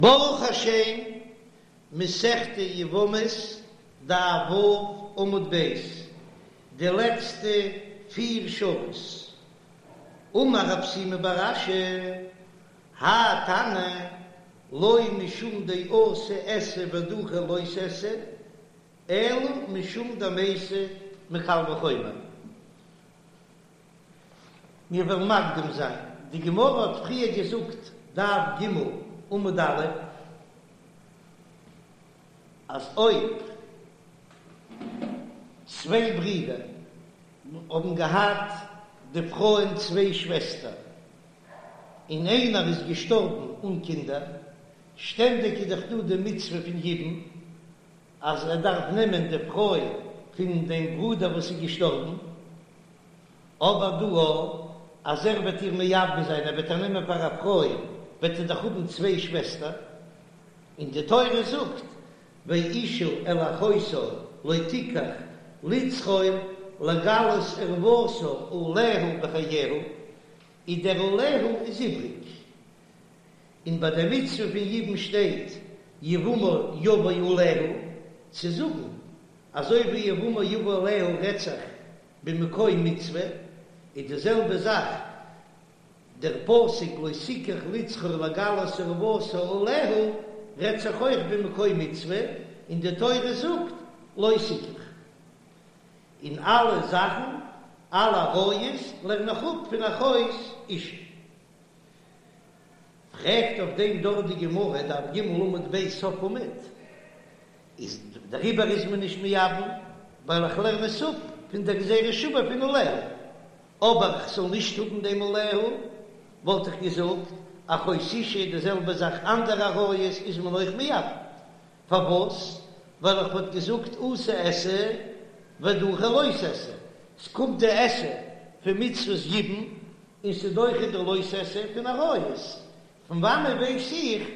ברוך השם, מסכת יבמות, דף ו' עמוד ב', די לעצטע פיר שורות. אמר רב שימי בר אשי, האי תנא לא משום דאתי עשה ודחי לא תעשה, אלא משום דמייתי מקל וחומר. מיר וועלן מקדים זיין, די גמרא האט פריער געזאגט, דף ג עמוד א', אז אויב צוויי ברידער האבן געהאט די פרויען צוויי שוועסטער, און איינער איז געשטארבן אן קינדער, שטענדיג איז דאך דא די מצוה פון יבום, אז ער דארף נעמען די פרוי פון דעם ברודער וואס איז געשטארבן, אבער דא אז ער וועט איר מייבם זיין, ער וועט איר נעמען פאר א פרוי, וועט ער דאך האבן צוויי שוועסטער, און די תורה זאגט, ואשה אל אחותה לא תקח לצרור לגלות ערותה עליה בחייה, איז דער עליה איז איבריג, און ביי די מצוה פון יבום שטייט יבמה יבא עליה, צו זאגן אזוי ווי יבמה יבא עליה רעדט זיך במקום מצוה, איז די זעלבע זאך דער פסוק לא תקח לצרור לגלות ערותה עליה רעדט זיך אויך במקום מצוה, און די תורה זאגט לא תקח. און אלע זאכן, אלע עריות לערן איך אפ פון אחות אשה. פרעגט אויף דעם דארט די גמרא, דף ג עמוד ב' סוף עמוד, איז דעריבער איז מען נישט מייבם, ווייל איך לערן עס אפ פון דער גזירה שוה פון עליה, אבער איך זאל נישט האבן דעם עליה, וואלט איך געזאגט, אחות אשה די זעלבע זאך אנדערע עריות איז מען אויך מייבם, פארוואס? ווייל איך וואלט געזאגט אתי עשה ודחי לא תעשה, ס'קומט די עשה פון מצוות יבום און ס'דוחה די לא תעשה פון עריות, פון וואנעט ווייס איך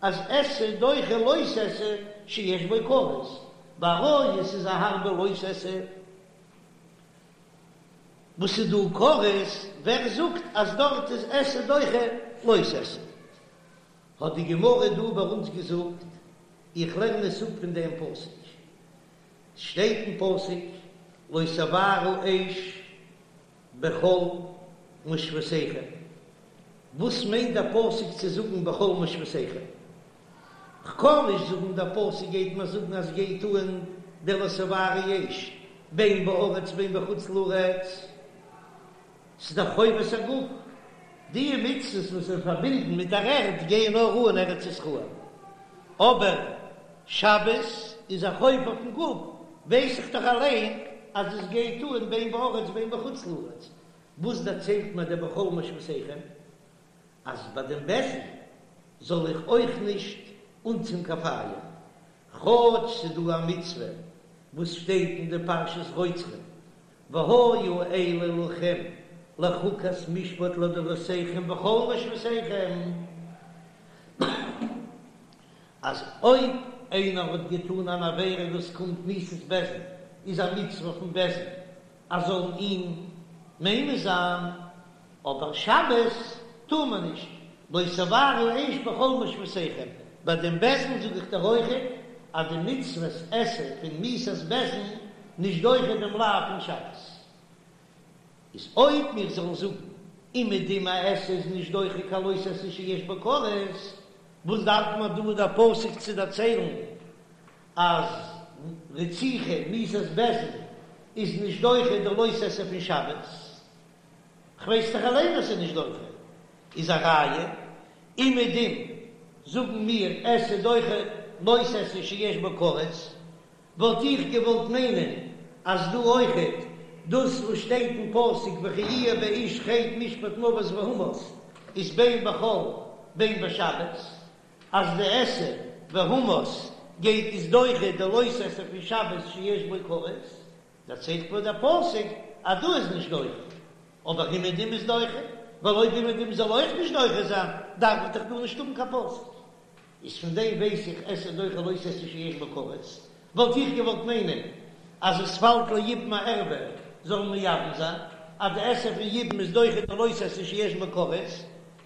אז עשה דוחה לא תעשה שיש בו כרת? ביי עריות איז א הארבע לא תעשה וואס איז דא כרת, ווער זאגט אז דארט איז עשה דוחה לא תעשה? האט די גמרא דא ביי אונז געזאגט, איך לערן עס אפ פון דעם פסוק, ס'שטייט אין פסוק לא תבערו אש בכל מושבותיכם, וואס מיינט דער פסוק צו זאגן בכל מושבותיכם? כ'קען נישט זאגן דער פסוק גייט מיר זאגן אז גייט אן דער לא תבערו אש בין בארץ בין בחוץ לארץ, ס'איז דאך חובת הגוף, די מצוות וואס זענען פארבינדן מיט דער ערד גייען נאר אן ארץ ישראל, אבער שבת איז א חוב אויפן גוף, ווייס איך דאך אליין אז עס גייט אן בין בארץ בין בחוץ לארץ, וואס דערציילט מיר דער בכל מושבותיכם? אז ביי דעם בית דין זאל איך אויך נישט אנצינדן קיין פייער, כאטש ס'איז דא א מצוה וואס שטייט אין די פרשת רוצחים, והיו אלה לכם לחוקת משפט לדורותיכם בכל מושבותיכם, אז אויב איינער האט געטאן אן עבירה וואס קומט מיתת בית דין, איז א מצוה פון בית דין אז זאלן אים ממית זיין, אבער שבת טאר מען נישט, לא תבערו אש בכל מושבותיכם, ביי דעם בית דין זאג איך דיר אויכעט אז די מצוות עשה פון מיתת בית דין נישט דוחה דעם לאו פון שבת. איז אויב מיר זאלן זאגן אומעדום א עשה איז נישט דוחה קיין לא תעשה שיש בו כרת, וואס דארף מען דא דער פסוק צו דערציילן אז רציחה מיתת בית דין איז נישט דוחה די לא תעשה פון שבת? כ'ווייס דאך אליין אז ס'איז נישט דוחה, איז א ראיה, אומעדום זאגן מיר עשה דוחה לא תעשה שיש בו כרת, וואלט איך געוואלט מיינען אז דא אויכעט דאס וואס שטייט אין פסוק וכי יהיה באיש חטא משפט מוות והומת איז בין בחול בין בשבת, אז די עשה והומת גייט איז דוחה די לא תעשה פון שבת שיש בו כרת. דערציילט מיר דער פסוק אז דא איז נישט דוחה, אבער אומעדום איז דוחה, ווייל אויב אומעדום זאל אויך נישט דוחה זיין, דארף איך דאך דא נישט האבן קיין פסוק. איז פון דעם ווייס איך עשה דוחה לא תעשה שיש בו כרת, וואלט איך געוואלט מיינען אז עס פאלט ליבום א ערוה זאל מען מייבם זיין, אז די עשה פון יבום איז דוחה די לא תעשה שיש בו כרת,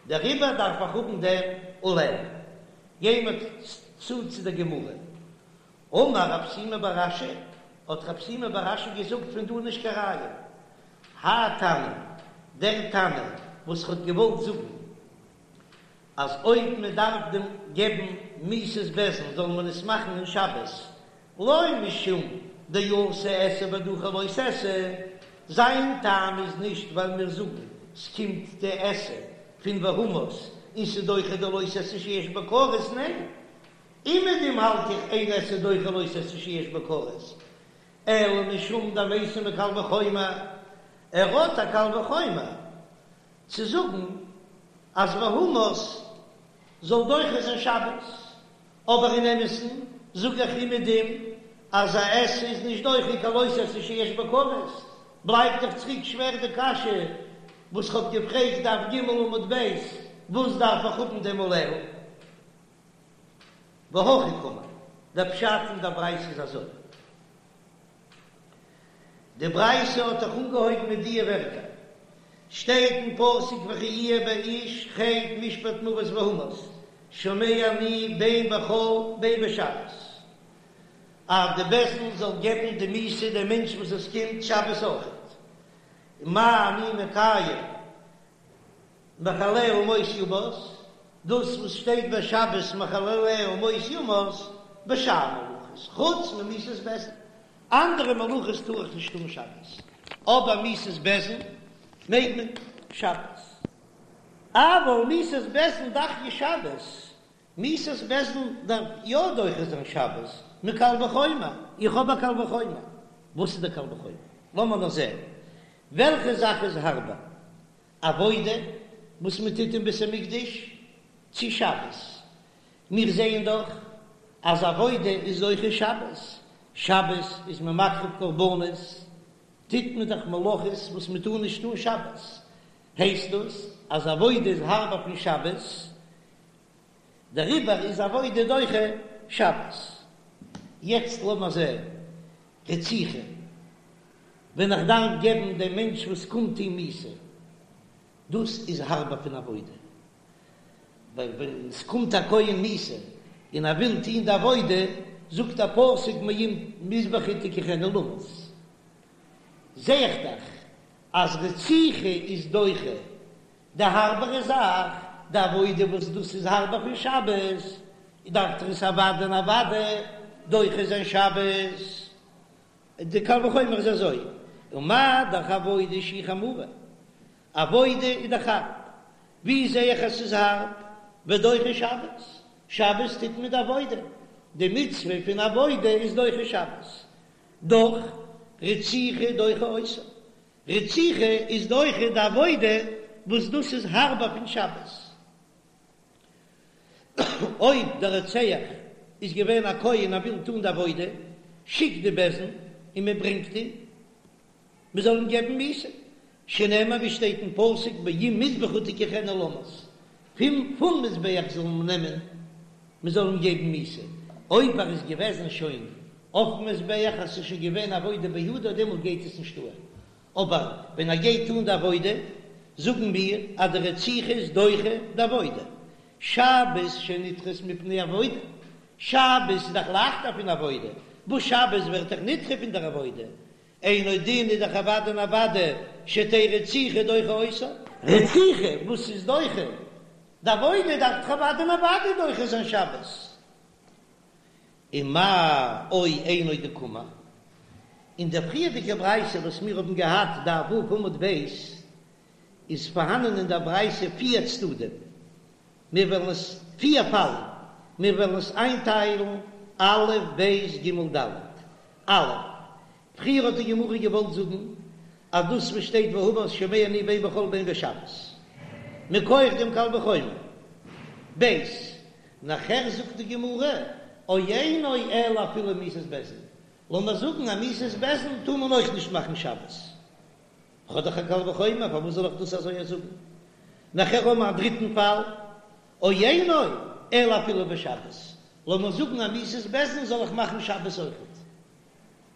דעריבער דארף איך האבן דעם עליה. גיי מיר צו צו דער גמרא. אמר רב שימי בר אשי, האט רב שימי בר אשי געזאגט פון דא נישט קיין ראיה. האי תנא, דער תנא וואס האט געוואלט זאגן אז אויב מען דארף דעם געבן מיתת בית דין זאל מען עס מאכן אין שבת, לא משום דאתי עשה ודחי לא תעשה, זיין טעם איז נישט ווייל מיר זאגן ס'קומט די עשה פון והמית און ס'דוחה די לא תעשה שיש בו כרת, ניין, אומעדום האלט איך אין עשה דוחה לא תעשה שיש בו כרת, אלא משום דמייתי מקל וחומר, ער האט א קל וחומר צו זאגן אז והמית זאל דוחה זיין שבת, אבער אין אמת'ן זאג איך אומעדום אז א עשה איז נישט דוחה קיין לא תעשה שיש בו כרת, בלייבט דאך צוריק שווער די קשיא וואס כ'האב געפרעגט דף ג עמוד ב', וואס דארף איך האבן דעם עליה? והכי קאמר, דער פשט אין דער ברייתא איז אזוי, די ברייתא האט דאך אנגעהויבן מיט דיע ווערטער, שטייט אין פסוק וכי יהיה באיש חטא משפט מוות והמית, שומע אני בין בחול בין בשבת, אז די בית דין זאל געבן די מיתה דעם מענטש וואס עס קומט שבת אויכעט, מה אני מקיים מחלליה מות יומת, דאס וואס שטייט ביי שבת מחלליה מות יומת, בשאר מלאכות, חוץ ממיתת בית דין, אנדערע מלאכות טאר איך נישט טון שבת, אבער מיתת בית דין מעג מען שבת. אבל מיתת בית דין דחיא שבת, מיתת בית דין דארף יא דוחה זיין שבת, מקל וחומר, איך האב א קל וחומר, וואס איז דער קל וחומר? לאמיר נאר זען, וועלכע זאך איז הארבער, עבודה וואס מען טוט אין בית המקדש צו שבת? מיר זעען דאך אז עבודה איז דוחה שבת, שבת איז מען מקריב קרבנות, טוט מען דאך מלאכות וואס מען טאר נישט טון שבת, הייסט דאס אז עבודה איז הארבער פון שבת, דעריבער איז עבודה דוחה שבת. יעצט לאמיר זען רציחה, ווען איך דארף געבן דעם מענטש וואס קומט אים מיתה, דאס איז הארבער פון עבודה, ווייל ווען עס קומט א כהן מיתה און ער וויל טון די עבודה, זאגט דער פסוק מעם מזבחי תקחנו למות, זע איך דאך אז רציחה איז דוחה די הארבערע זאך, די עבודה וואס דאס איז הארבער פון שבת, דארף דאך עס אוודאי און אוודאי דוחה זיין שבת. די קל וחומר איז אזוי, ומה דאך עבודה שהיא חמורה, עבודה איז דאך הארב, ווי זע איך אז ס'איז הארב? ודוחה שבת, שבת טוט מען די עבודה, די מצוה פון עבודה איז דוחה שבת, דאך רציחה דוחה אותה, רציחה איז דוחה די עבודה וואס דאס איז הארבער פון שבת. אויב דער רוצח איז געווען א כהן ער וויל טון די עבודה, שיקט די בית דין און מען ברענגט אים מען זאל אים געבן מיתה, שנאמר ווי שטייט אין פסוק מעם מזבחי תקחנו למות, פון פון מזבח זאל מען נעמען מען זאל אים געבן מיתה, אויב ער איז געוועזן שוין אויפן מזבח אז ס'איז שוין געווען עבודה בידו דעמאלט גייט עס נישט אן, אבער ווען ער גייט טון די עבודה זאגן מיר אז די רציחה איז דוחה די עבודה, שבת שנדחית מפני עבודה, שבת איז דאך לייכטער פון עבודה, וואס שבת ווערט דאך נדחה פון דער עבודה, אינו דין איז דאך אוודאי און אוודאי שתהא רציחה דוחה אותה. רציחה וואס איז דוחה די עבודה דארף דאך אוודאי און אוודאי דוחה זיין שבת. ומאי או אינו דקאמר, אין דער פריערדיגער ברייתא וואס מיר האבן געהאט דף ו' עמוד ב', איז פארהאנען אין דער ברייתא פיר צדדים, מיר וועלן עס פיר פאלן, מיר וועלן עס איינטיילן א' ב' ג' ד', א', פריער האט די גמרא געוואלט זאגן אז דאס וואס שטייט והמית שומע אני בין בחול בין בשבת מכח דעם קל וחומר, ב', נאכער זאגט די גמרא או אינו אלא אפילו מיתת בית דין, לאמיר זאגן אז מיתת בית דין טאר מען אויך נישט מאכן שבת, כ'האב דאך א קל וחומר פארוואס זאל איך דאס אזוי זאגן? נאכער האבן מיר א דריטן פאל, או אינו אלא אפילו בשבת, לאמיר זאגן אז מיתת בית דין זאל איך מאכן שבת אויכעט.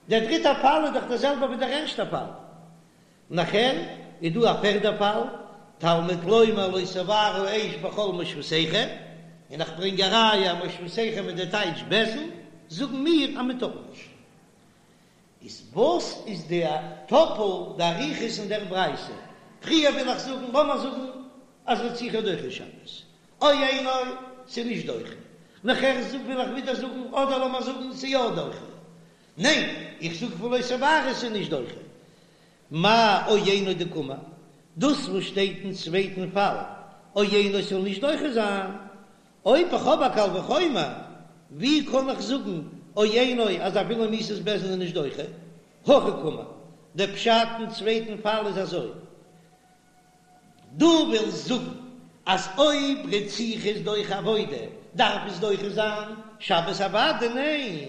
דער דריטער פאל איז דאך דער זעלבער ווי דער ערשטער פאל. נאכער איז דא א פערדער פאל, תלמוד לומר לא תבערו אש בכל מושבותיכם. און איך ברענג א ראיה אז מושבותיכם איז די טייטש בית דין, זאגן מיר אז מען טאר נישט. איז וואס איז די טאפל די אריכות אין דער ברייתא? פריער וויל איך זאגן, לאמיר זאגן אז רציחה דוחה שבת, או אינו, ס'איז נישט דוחה. נאכער וויל איך ווידער זאגן, אדער לאמיר זאגן ס'איז יא דוחה. ניין, איך זאג פון לא תבערו ס'איז נישט דוחה. מאי או אינו דקאמר, דאס וואס שטייט אין צווייטן פאל, או אינו ס'זאל נישט דוחה זיין, אויב איך האב א קל וחומר, ווי קען איך זאגן או אינו אז אפילו מיתת בית דין איז נישט דוחה? הכי קאמר, דער פשט אין צווייטן פאל איז אזוי, דו ווילסט זאגן אז אויב רציחה איז דוחה עבודה דארף עס דוחה זיין שבת אוודאי? ניין,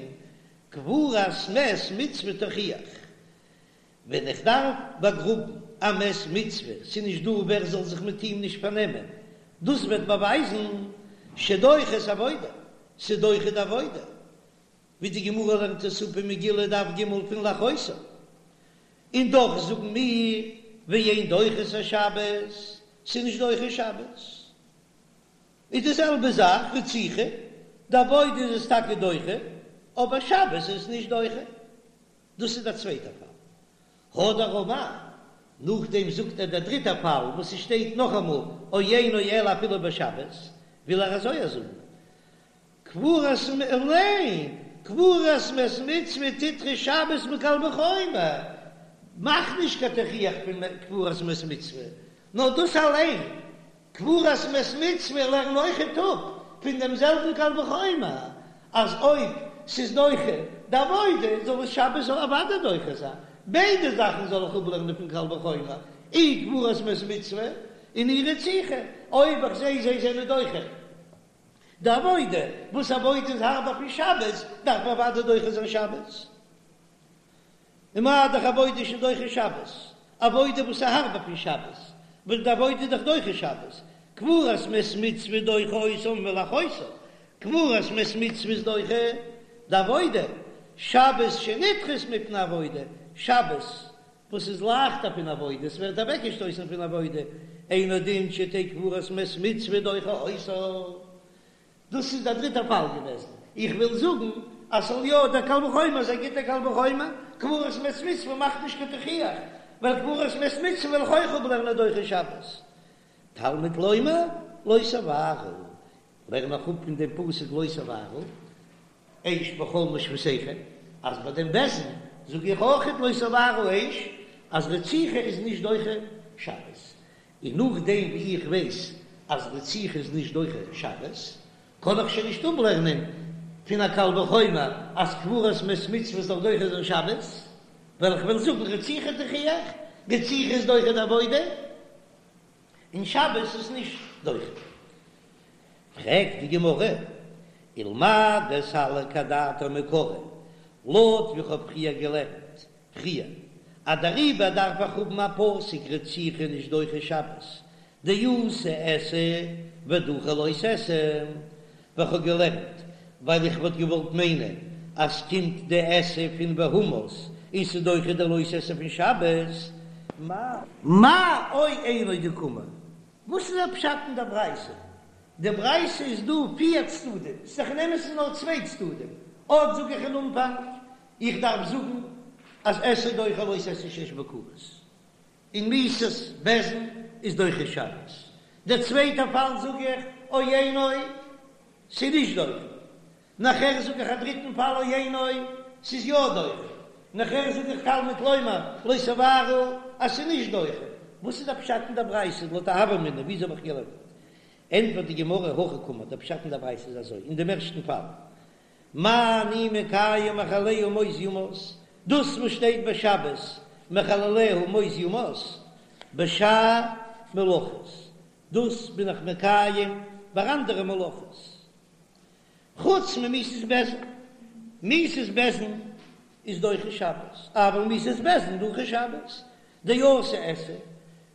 קבורת מת מצוה תוכיח, ווען איך דארף באגראבן א מת מצוה, ס'איז נישט דא ווער זאל זיך מיט אים נישט פארנעמען, דאס וועט באווייזן שדוחה את העבודה, ס'איז דוחה די עבודה, ווי די גמרא לערנט עס אפ אין מגילה דף ג' פון לאחותו, און דאך זאגן מיר ואין דוחה את השבת, ס'איז נישט דוחה שבת, איז די זעלבע זאך רציחה, די עבודה איז עס טאקע דוחה, אבער שבת איז עס נישט דוחה. דאס איז דער צווייטער פאל. הדר אמר, נאכדעם זאגט ער דער דריטער פאל וואס עס שטייט נאכאמאל או אינו אלא אפילו בשבת, וויל ער אזוי זאגן, קבורת מ ניין, קבורת מת מצוה תדחה שבת מקל וחומר, מאך נישט קיין תוכיח פון קבורת מת מצוה, נאר דאס אליין קבורת מת מצוה לערן אויכעט אפ פון דעם זעלבן קל וחומר אז אויב ס'איז דוחה די עבודה זאל עס שבת זאל אוודאי דוחה זיין, ביידע זאכן זאל איך אפלערנען פון קל וחומר, אי קבורת מת מצוה און אי רציחה, אויב איך זעה זיי זענען דוחה די עבודה, וואס עבודה איז הארבער פון שבת, דארף אוודאי דוחה זיין שבת. ומה דאך עבודה שדוחה שבת, עבודה וואס איז הארבער פון שבת, ווייל די עבודה איז דאך דוחה שבת, קבורת מת מצוה דוחה אותה מלאחותו, קבורת מת מצוה איז דוחה די עבודה, שבת שנדחית מפני עבודה, שבת וואס איז לייכטער פון עבודה, עס ווערט אוועקגעשטויסן פון עבודה, אינו דין שתהא קבורת מת מצוה דוחה אותה. דאס איז דער דריטער פאל געוועזן. איך וויל זאגן אז ס'זאל יא דער קל וחומר איז א גוטער קל וחומר, קבורת מת מצוה מאכט נישט קיין תוכיח, ווייל קבורת מת מצוה וועל איך אויך אפלערנען דוחה שבת. תלמוד לומר לא תבערו, לערן איך אפ פון דעם פסוק לא תבערו אש בכל מושבותיכם, אז ביי דעם בית דין זאג איך אויכעט לא תבערו אש אז רציחה איז נישט דוחה שבת. און נאכדעם ווי איך ווייס אז רציחה איז נישט דוחה שבת, קען איך שוין נישט אפלערנען פון א קל וחומר אז קבורת מת מצוה זאל דוחה זיין שבת, ווייל איך וועל זאגן רציחה תוכיח, רציחה איז דוחה די עבודה, און שבת איז נישט דוחה. פרעגט די גמרא, ולמאי דסליק אדעתיה מעיקרא, לויט ווי איך האב פריער געלערנט פריער, אז דעריבער דארף איך האבן א פסוק רציחה נישט דוחה שבת, דאתי עשה ודחי לא תעשה, ווי כ'האב געלערנט, ווייל איך וואלט געוואלט מיינען אז ס'קומט די עשה פון והומת און ס'דוחה די לא תעשה פון שבת. מאי או אינו דקאמר? וואס איז א פשט אין דער ברייתא? די ברייתא איז דא פיר צדדים, ס'איז דאך אין אמת'ן נאר צוויי צדדים, אט זאג איך אין אנפאנג, איך דארף זאגן אז עשה דוחה לא תעשה שיש בו כרת, און מיתת בית דין איז דוחה שבת. דער צווייטער פאל זאג איך או אינו, ס'איז נישט דוחה. נאכער זאג איך א דריטן פאל או אינו, ס'איז יא דוחה. נאכער זאג איך תלמוד לומר לא תבערו אז ס'איז נישט דוחה. וואס איז דער פשט אין דער ברייתא לויט א הוה אמינא וויאזוי האב איך געלערנט? ענטפערט די גמרא הכי קאמר, דער פשט אין דער ברייתא איז אזוי, אין דעם ערשטן פאל, מה אני מקיים מחלליה מות יומת, דאס וואס שטייט ביי שבת מחלליה מות יומת, בשאר מלאכות, דאס בין איך מקיים ביי אנדערע מלאכות, חוץ ממיתת בית דין, מיתת בית דין איז דוחה שבת, אבל מיתת בית דין דוחה שבת, דאתי עשה,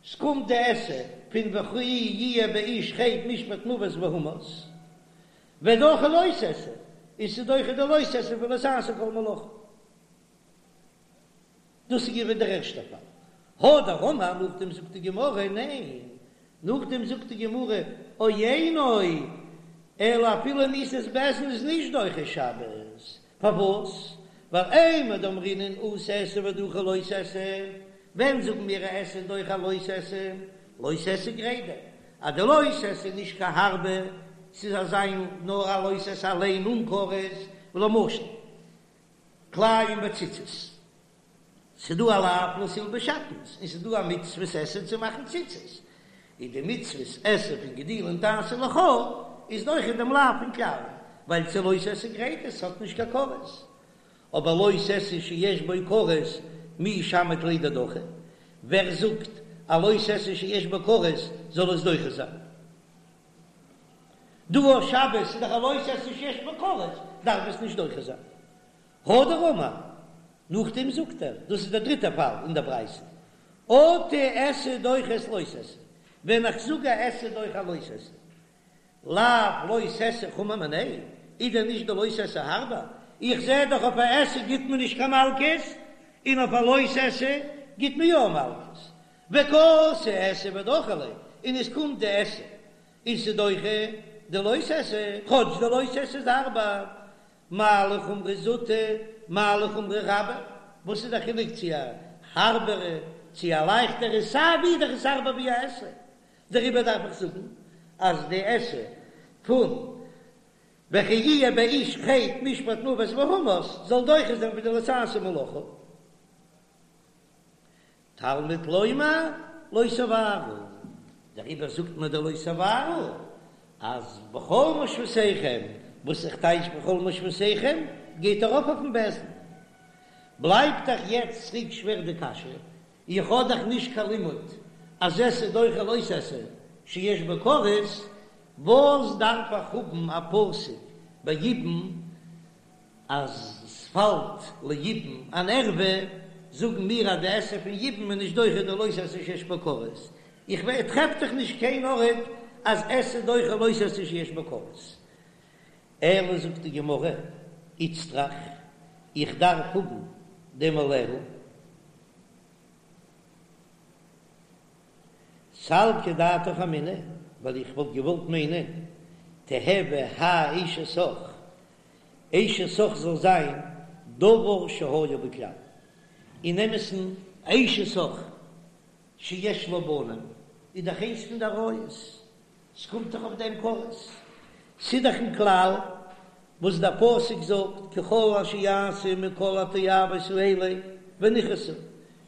ס'קומט די עשה פון וכי יהיה באיש חטא משפט מוות והומת. ודחי לא תעשה, און ס'איז דוחה די לא תעשה פון לא תעשה כל מלאכה. דאס איז געווען דער ערשטער פאל. הדר אמר, נאכדעם זאגט די גמרא, ניין, נאכדעם זאגט די גמרא, או אינו. אלא אפילו מיתת בית דין איז נישט דוחה שבת, פארוואס? ווייל אימר דאמרינן אתי עשה ודחי לא תעשה, ווען זאגן מיר א עשה דוחה לא תעשה? לא תעשה גרידא, אז די לא תעשה איז נישט קיין הארבע, ס'איז אזא נאר א לא תעשה אליין אן כרת, למשל כלאים בציצית, ס'דא א לאו לא תלבש שעטנז און ס'דא א מצוות עשה צו מאכן ציצית, און די מצוות עשה פון גדילים תעשה לך איז דוחה דעם לאו פון כלאים, ווייל ס'איז לא תעשה גרידא, ס'האט נישט קיין כרת, אבער לא תעשה שיש בו כרת מי שמעת ליה דדחי, ווער זאגט א לא תעשה שיש בו כרת זאל עס דוחה זיין? דא אויף שבת איז דאך א לא תעשה שיש בו כרת דארף עס נישט דוחה זיין. הדר אמר, נאכדעם זאגט ער, דאס איז דער דריטער פאל אין דער ברייתא, אטו עשה דוחה את לא תעשה, ווען איך זאג א עשה דוחה א לא תעשה, לאו לא תעשה חמור מיניה, איז דען נישט די לא תעשה הארבער? איך זע דאך אויף א עשה גיט מען נישט קיין מלקות, און אויף א לא תעשה גיט מען יא מלקות, וקאתי עשה ודחי ליה, און עס קומט די עשה און ס'דוחה די לא תעשה, כאטש די לא תעשה איז הארבער, מה לחומרא זוטא, מה לחומרא רבה, וואס איז די חילוק צו א הארבערע צו א לייכטערע, סיי ווי דאך איז הארבער ווי א עשה, דעריבער דארף איך זאגן אז די עשה פון וכי יהיה באיש חטא משפט מוות והמית זאל דוחה זיין ווי די לא תעשה מלאכה. תלמוד לומר לא תבערו, דעריבער זאגט מען די לא תבערו אז בכל מושבותיכם, וואס איך טייטש בכל מושבותיכם גייט ארויף אויפן בית דין. בלייבט דאך יעצט צוריק שווער די קשיא, איך האב דאך נישט קיין לימוד אז עשה דוחה לא תעשה שיש בו כרת, וואס דארף איך האבן א פסוק ביי יבום אז ס'פאלט ליבום אן ערווה, זאגן מיר אז די עשה פון יבום איז נישט דוחה די לא תעשה שיש בו כרת, איך טרעף דאך נישט קיין ארט אז עשה דוחה לא תעשה שיש בו כרת. אלא זאגט די גמרא, איצטריך, איך דארף האבן דעם עליה. סלקא דעתך אמינא, ווייל איך וואלט געוואלט מיינען, תיהוי האי אשת אח, אשת אח זאל זיין דבר שהיה בכלל, אין אמת'ן אשת אח שיש לה בנים איז דאך איינס פון די עריות, ס'קומט דאך אויף דעם כרת, ס'איז דאך אין כלל וואס דער פסוק זאגט ככל אשר יעשו מכל התועבות האלה ונכרתו,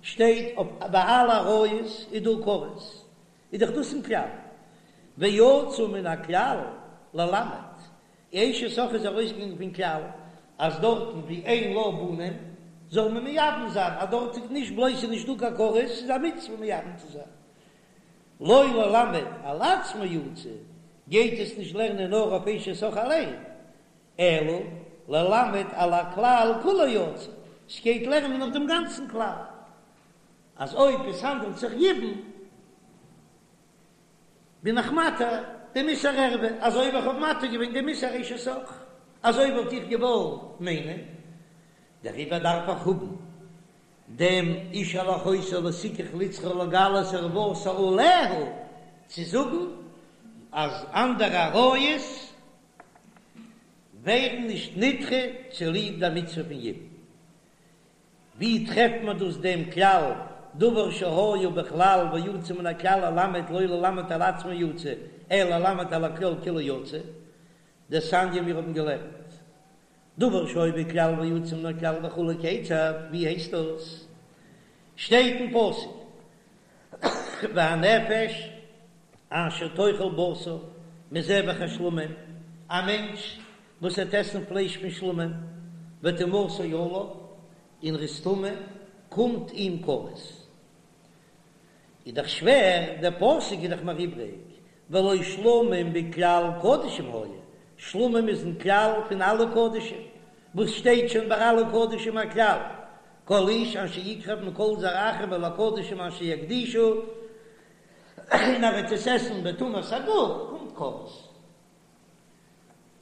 שטייט אויף ביי אלע עריות איז דא כרת, איז דאך דאס אין כלל, ויצא מן הכלל ללמד, אשת אח איז ארויסגעגאנגען פון כלל אז דארטן ווי אין לה בנים זאל מען מייבם זיין, אז דארט איז נישט בלויז ס'איז נישטא קיין כרת, ס'איז א מצוה מייבם צו זיין. לא ללמד על עצמו יצא, גייט עס נישט לערנען נאר אויף אשת אח אליין, אלא ללמד על הכלל כולו יצא, ס'גייט לערנען אויף דעם גאנצן כלל, אז אויב עס האנדלט זיך יבום, בין איך מתיר דעם איסור ערווה, אזוי ווי איך האב מתיר געווען דעם איסור אשת אח, אזוי וואלט איך געוואלט מיינען, דעריבער דארף איך האבן דעם איש אל אחותו לא תקח לצרור לגלות ערותה עליה, צו זאגן אז אנדערע עריות ווערן נישט נדחה צוליב דער מצוה פון יבום. ווי טרעפט מען דאס דעם כלל דבר שהיה בכלל ויצא מן הכלל ללמד לא ללמד על עצמו יצא אלא ללמד על הכלל כולו יצא, דתניא מיר האבן געלערנט דבר שהיה בכלל ויצא מן הכלל וכו' כיצד, ווי הייסט דאס? שטייט אין פסוק והנפש אשר תאכל בשר מזבח השלמים, א מענטש וואס וועט עסן פלייש פון שלמים, וטומאתו עליו, און ער איז טמא, קומט אים כרת. איז דאך שווער, דער פסוק איז דאך מיר איבריג, והלא שלמים בכלל קדשים היו, שלמים איז אין כלל פון אלע קדשים, וואס שטייט שוין ביי אלע קדשים א כלל, כל איש אשר יקרב מכל זרעכם אל הקדשים אשר יקדישו, און ער וועט עס עסן בטומאת הגוף, קומט כרת.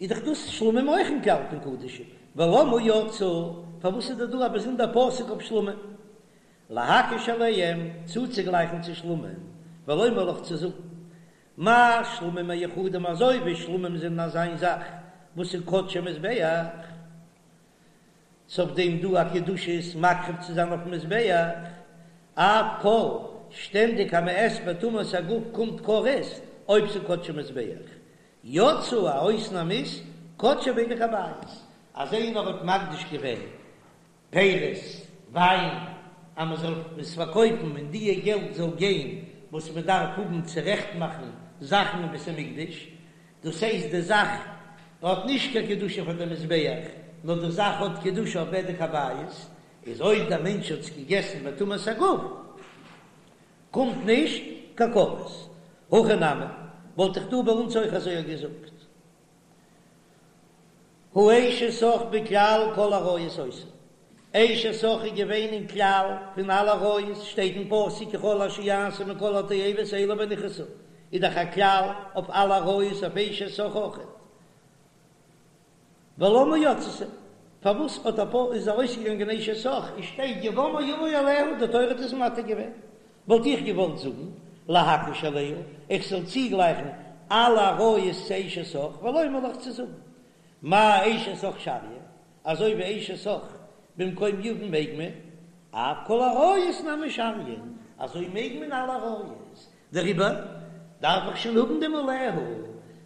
איז דאך דאס שלמים אויך אין כלל פון קדשים, ולמה יצאו, פארוואס איז דא דא א באזונדער פסוק אויף שלמים? להקיש אליהם, צוצוגלייכן צו שלמים, ולומר לך צו זאגן, מה שלמים מיוחדים אזוי ווי שלמים זענען אזא זאך וואס איז קדשי מזבח, ס'אויף דעם דא א קדושה עס מקריב צו זיין אויפן מזבח, אף כל, שטענדיג אז מ'עסט בטומאת הגוף קומט כרת אויב ס'איז קדשי מזבח, יצאו א אויסנאם איז קדשי בדק הבית, אז איינער האט מקדיש געווען פירות, וויין, אז מען זאל עס פארקויפן און דיע געלט זאל גיין וואס מען דארף האבן צורעכט מאכן זאכן אין בית המקדש, דאס הייסט די זאך האט נישט קיין קדושה פאר די מזבח, נאר די זאך האט קדושה אויף בדק הבית, איז אויב דער מענטש האט עס געגעסן בטומאת הגוף קומט נישט קיין כרת. הכא נמי, וואלט איך דא ביי אונז אויך אזוי געזאגט. הא אשת אח בכלל כל עריות היתה. אשת אח איז געווען אין כלל פון אלע עריות, שטייט אין פסוק כי כל אשר יעשו מכל התועבות האלה ונכרתו, איז דאך א כלל אויף אלע עריות אויף אשת אח אויכעט. ולמה יצתה? פארוואס האט א פאר איז ארויסגעגאנגען אשת אח און שטייט יבמה יבא עליה, די תורה האט עס מתיר געווען, וואלט איך געוואלט זאגן להקיש אליה, איך זאל צוגלייכן אלע עריות צו אשת אח, ולומר לך צו זאגן מה אשת אח שריא, אזוי ווי אשת אח במקום יבם מעג מען, אף כל עריות נמי שריין, אזוי מעג מען אלע עריות, דעריבער דארף איך שוין האבן דעם עליה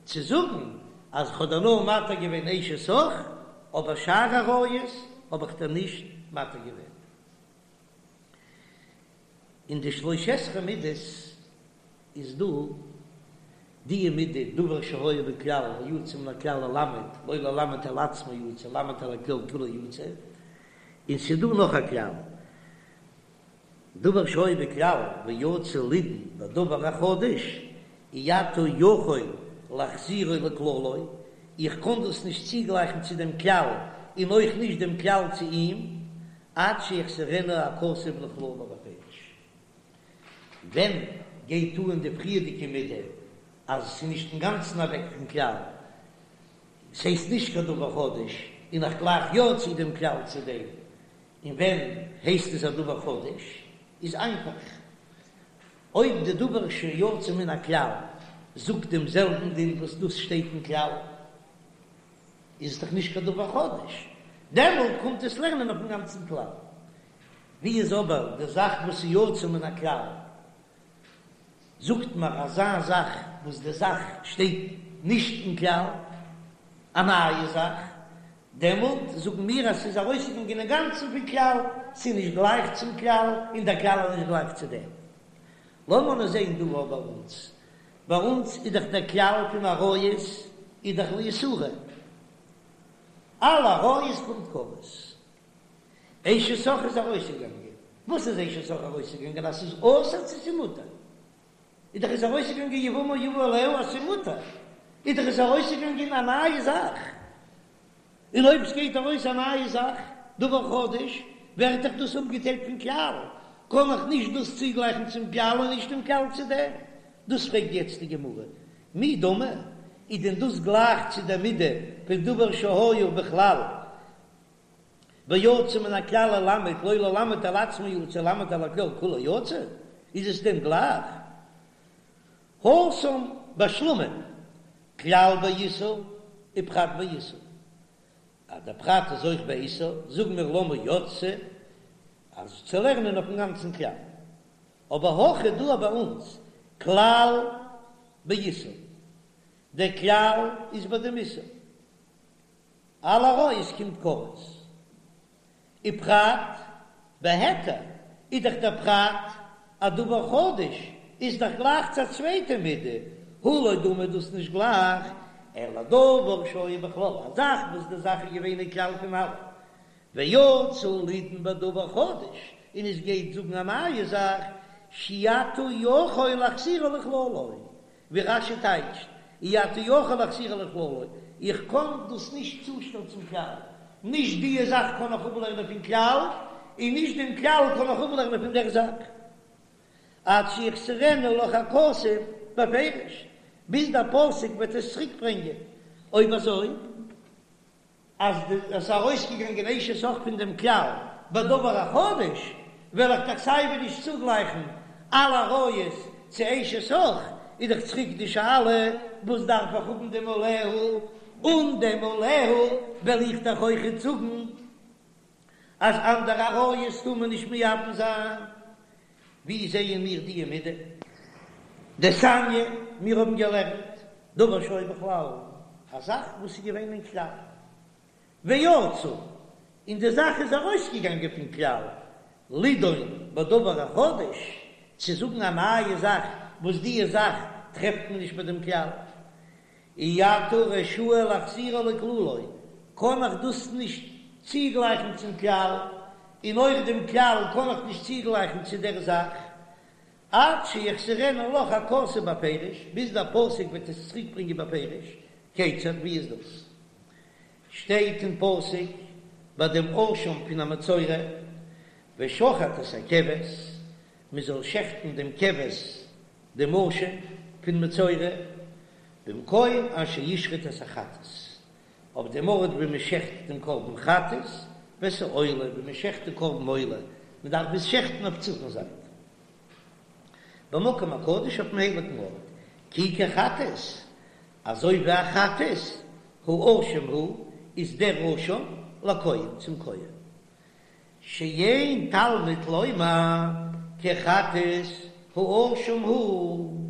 צו זאגן אז כ'האב דיר נאר מתיר געווען אשת אח, אבער שאר עריות האב איך דיר נישט מתיר געווען. אין די שלש עשרה מידות איז דא די מידה דבר שהיה בכלל ויצא מן הכלל ללמד, לא ללמד על עצמו יצא, ללמד על הכלל כולו יצא, און ס'איז דא נאך א כלל, דבר שהיה בכלל ויצא לידון בדבר החדש, אי אתה יכול להחזירו לכללו, איך קען דאס נישט צוגלייכן צו דעם כלל און אויך נישט דעם כלל צו אים, עד שיחזירנו הכתוב לכללו בפירוש. ווען גייט אן די פריערדיגע מידה אז עס איז נישט אינגאנצן אוועק פון כלל, ס'הייסט נישט קיין דבר חדש, און איך גלייך יא צו דעם כלל צו דעם, און ווען הייסט עס א דבר חדש? איז איינפאך, אויב די דבר שיצא מן הכלל זאגט דעם זעלבן דין וואס דאס שטייט אין כלל, איז עס דאך נישט קיין דבר חדש, דעמאלט קומט עס לערנען אויפן גאנצן כלל. ווי איז אבער די זאך וואס איז יצא מן הכלל? זאגט מיר אזא זאך וואס די זאך שטייט נישט אין כלל, א נייע זאך, דעמאלט זאגן מיר אז ס'איז ארויסגעגאנגען אינגאנצן פון כלל, ס'איז נישט גלייך צום כלל, און דער כלל איז נישט גלייך צו דעם. לאמיר נאר זען דא ביי אונז, ביי אונז איז דאך דער כלל פון עריות איז דאך לאיסורא, אלע עריות קומט כרת. אשת אח איז ארויסגעגאנגען, וואס איז אשת אח ארויסגעגאנגען אז ס'איז אסור צו ס'איז מותר? איז דאך איז ארויסגעגאנגען יבמה יבא עליה אז ס'איז מותר, איז דאך איז ארויסגעגאנגען א נייע זאך, און אויב ס'גייט ארויס א נייע זאך, דבר חדש, ווערט דאך דאס אפגעטיילט פון כלל, קען איך נישט דאס צוגלייכן צום כלל און נישט דעם כלל צו דעם. דאס פרעגט יעצט די גמרא, מי דמי, איז דען דאס גלייך צו דער מידה פון דבר שהיה בכלל ויצא מן הכלל ללמד לא ללמד על עצמו יצא ללמד על הכלל כולו יצא, איז עס דען גלייך? התם בשלמים, כלל באיסור ופרט באיסור, אז דער פרט איז אויך באיסור, זאגן מיר למה יצתה, אז צו לערנען אויפן גאנצן כלל. אבער הכא דא ביי אונז, כלל באיסור, דער כלל איז ביי דעם איסור. אלע עריות קומט כרת. ופרט בהיתר איז דאך דער פרט א דבר חדש, איז דאך גלייך צו א צווייטע מידה, הא לא דמי דאס נישט גלייך, אלא דבר שהיה בכלל, א זאך וואס די זאך איז געווען אין כלל פון אלע, ויצא לידון בדבר חדש, און עס גייט זאגן א נייע זאך, שאי אתה יכול להחזירו לכללו, ווי רש"י טייטשט, אי אתה יכול להחזירו לכללו, איך קען דאס נישט צושטעלן צום כלל, נישט דיע זאך קען איך אפלערנען פון כלל, און נישט דעם כלל קען איך אפלערנען פון דער זאך. עד שיחזירנו לך הכתוב בפירוש, ביז דער פסוק וועט עס צוריק ברענגען. אויב אזוי. אז עס איז ארויסגעגאנגען אשת אח פון דעם כלל בדבר החדש, וועל איך דאך סייווי נישט צוגלייכן אלע עריות צו אשת אח, איז דאך צוריק די שאלה, וואס דארף איך האבן דעם עליה? אן דעם עליה וועל איך דאך אויכעט זאגן אז אנדערע עריות טאר מען נישט מייבם זיין. ווי זעען מיר די מידה? דתניא, מיר האבן געלערנט דבר שהיה בכלל, א זאך וואס איז געווען אין כלל, ויצא, און די זאך איז ארויסגעגאנגען פון כלל, לידון בדבר החדש, צו זאגן א נייע זאך וואס די זאך טרעפט מען נישט ביי דעם כלל. אי אתה רשאי להחזירו לכללו, קען איך דאס נישט צוגלייכן צום כלל, און אויך דעם כלל קען איך נישט צוגלייכן צו דער זאך, עד שיחזירנו לך הכתוב בפירוש, ביז דער פסוק וועט עס צוריקברענגען בפירוש, כיצד, ווי איז דאס? שטייט אין פסוק ביי דעם אשם פון א מצורע, ושחט את הכבש, מען זאל שעכטן דעם כבש דעם אשם פון מצורע, במקום אשר ישחט את החטאת, אויף דעם ארט ווי מען שעכט דעם קרבן חטאת, ואת העולה, ווי מען שעכט די קרבן עולה, מען דארף עס שעכטן אויף צפון זייט, במקום הקדוש אויפן הייליגן ארט, כי כחטאת, אזוי ווי א חטאת, האשם הוא, איז דער אשם לכהן, צום כהן. שאין תלמוד לומר כחטאת האשם הוא,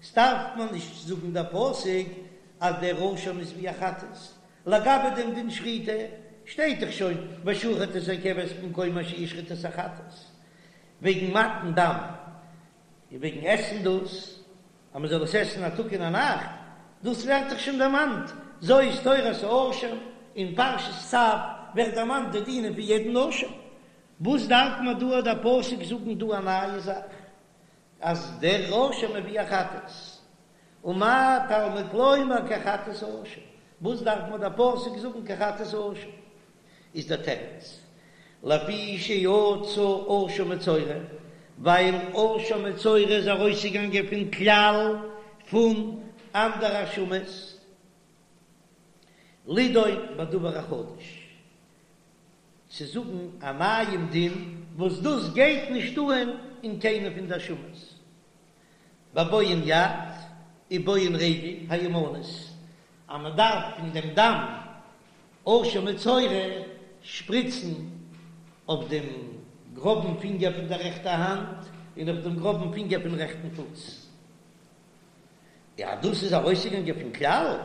ס'דארף מען נישט זאגן דער פסוק אז דער אשם איז ווי א חטאת, לגבי דעם דין שחיטה שטייט דאך שוין ושחט את הכבש במקום אשר ישחט את החטאת, וועגן מתן דם און וועגן עסן דאס אז מען זאל עס עסן א טאג און א נאכט, דאס ווערט דאך שוין דערמאנט, זאת תורת האשם, אין פרשת צו ווערט דערמאנט די דינים פון יעדן אשם, וואס דארף מען דא דער פסוק זאגן דא א נייע זאך אז דער אשם איז ווי א חטאת, ומה תלמוד לומר כחטאת האשם, וואס דארף מען דער פסוק זאגן כחטאת האשם? איז דער תירוץ, לפי שיצא אשם מצורע, ווייל אשם מצורע איז ארויסגעגאנגען פון כלל פון אנדערע אשמות, לידון בדבר החדש, צו זאגן א נייעם דין וואס דאס גייט נישט אהן אין קיינע פון די אשמות, בבוהן יד ובוהן רגל הימנית, אז מען דארף פון דעם דם אשם מצורע שפריצן אויף דעם גראבן פינגער פון דער רעכטער האנט און אויף דעם גראבן פינגער פון רעכטן פוס. יא, דאס איז ארויסגעגאנגען פון כלל.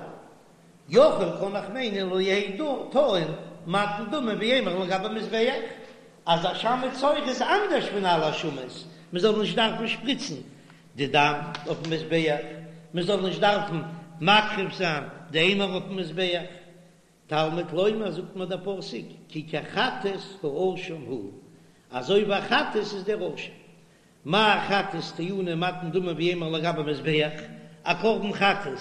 יכול קען איך מיינען לא יהא טעון מתן דמים ואימורין לגבי מזבח, אז אשם מצורע איז אנדערש פון אלע אשמות, מען זאל נישט דארפן שפריצן די דם אויפן מזבח, מען זאל נישט דארפן מקריב זיין די אימור אויפן מזבח. תלמוד לומר זאגט מיר דער פסוק כי כחטאת האשם הוא, אזוי ווי א חטאת איז דער אשם. מה חטאת טעונה מתן דמים ואימורין לגבי מזבח, א קרבן חטאת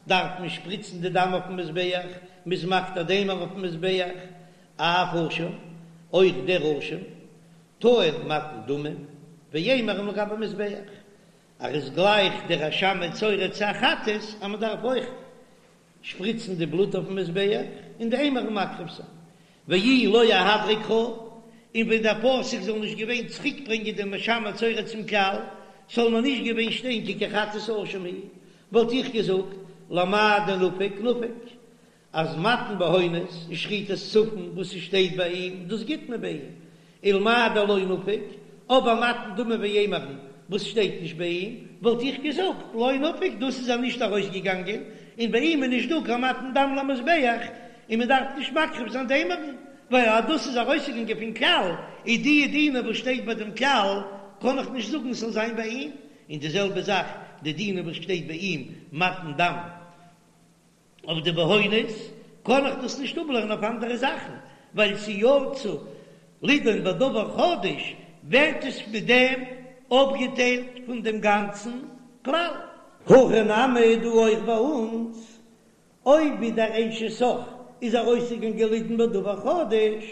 דארף מען שפריצן די דם אויפן מזבח, מ'איז מקטיר די אימור אויפן מזבח, אף אשם, אויך דער אשם, טעון מתן דמים ואימורין לגבי מזבח, ער איז גלייך דער אשם מצורע צו א חטאת אז מען דארף אויך שפריצן די בלוט אויפן מזבח און די אימורין מקריב זיין, ואי לא אהדריה קרא, און ווען דער פסוק זאל נישט געווען צוריק ברענגען דעם אשם מצורע צום כלל, זאל מען נישט געווען שטיין כי כחטאת האשם הוא, וואלט איך געזאגט למאי דנפיק נפיק, אז מתן בהונות און שחיטת צפון וואס ס'שטייט ביי אים דאס גיט מען ביי אים, ולמאי דלא נפיק, אבער מתן דמים ואימורין וואס שטייט נישט ביי אים, וואלט איך געזאגט לא נפיק דאס איז ער נישט ארויסגעגאנגען, און ביי אים איז נישט דא קיין מתן דם למזבח, און מען דארף נישט מקריב זיין די אימורין, ווייל אז דאס איז ארויסגעגאנגען פון כלל, איז די דינים וואס שטייט ביי דעם כלל קען איך נישט זאגן ס'זאל זיין ביי אים, און די זעלבע זאך די דינים וואס שטייט ביי אים מתן דם. אויף די בהונות קען איך דאס נישט אפלערנען אויף אנדערע זאכן, ווייל ס'יצא לידון בדבר חדש ווערט עס מיט דעם אפגעטיילט פון דעם גאנצן כלל. הכא נמי דא אויך ביי אונז, אויב ווי דער אשת אח איז ארויסגעגאנגען לידון בדבר חדש,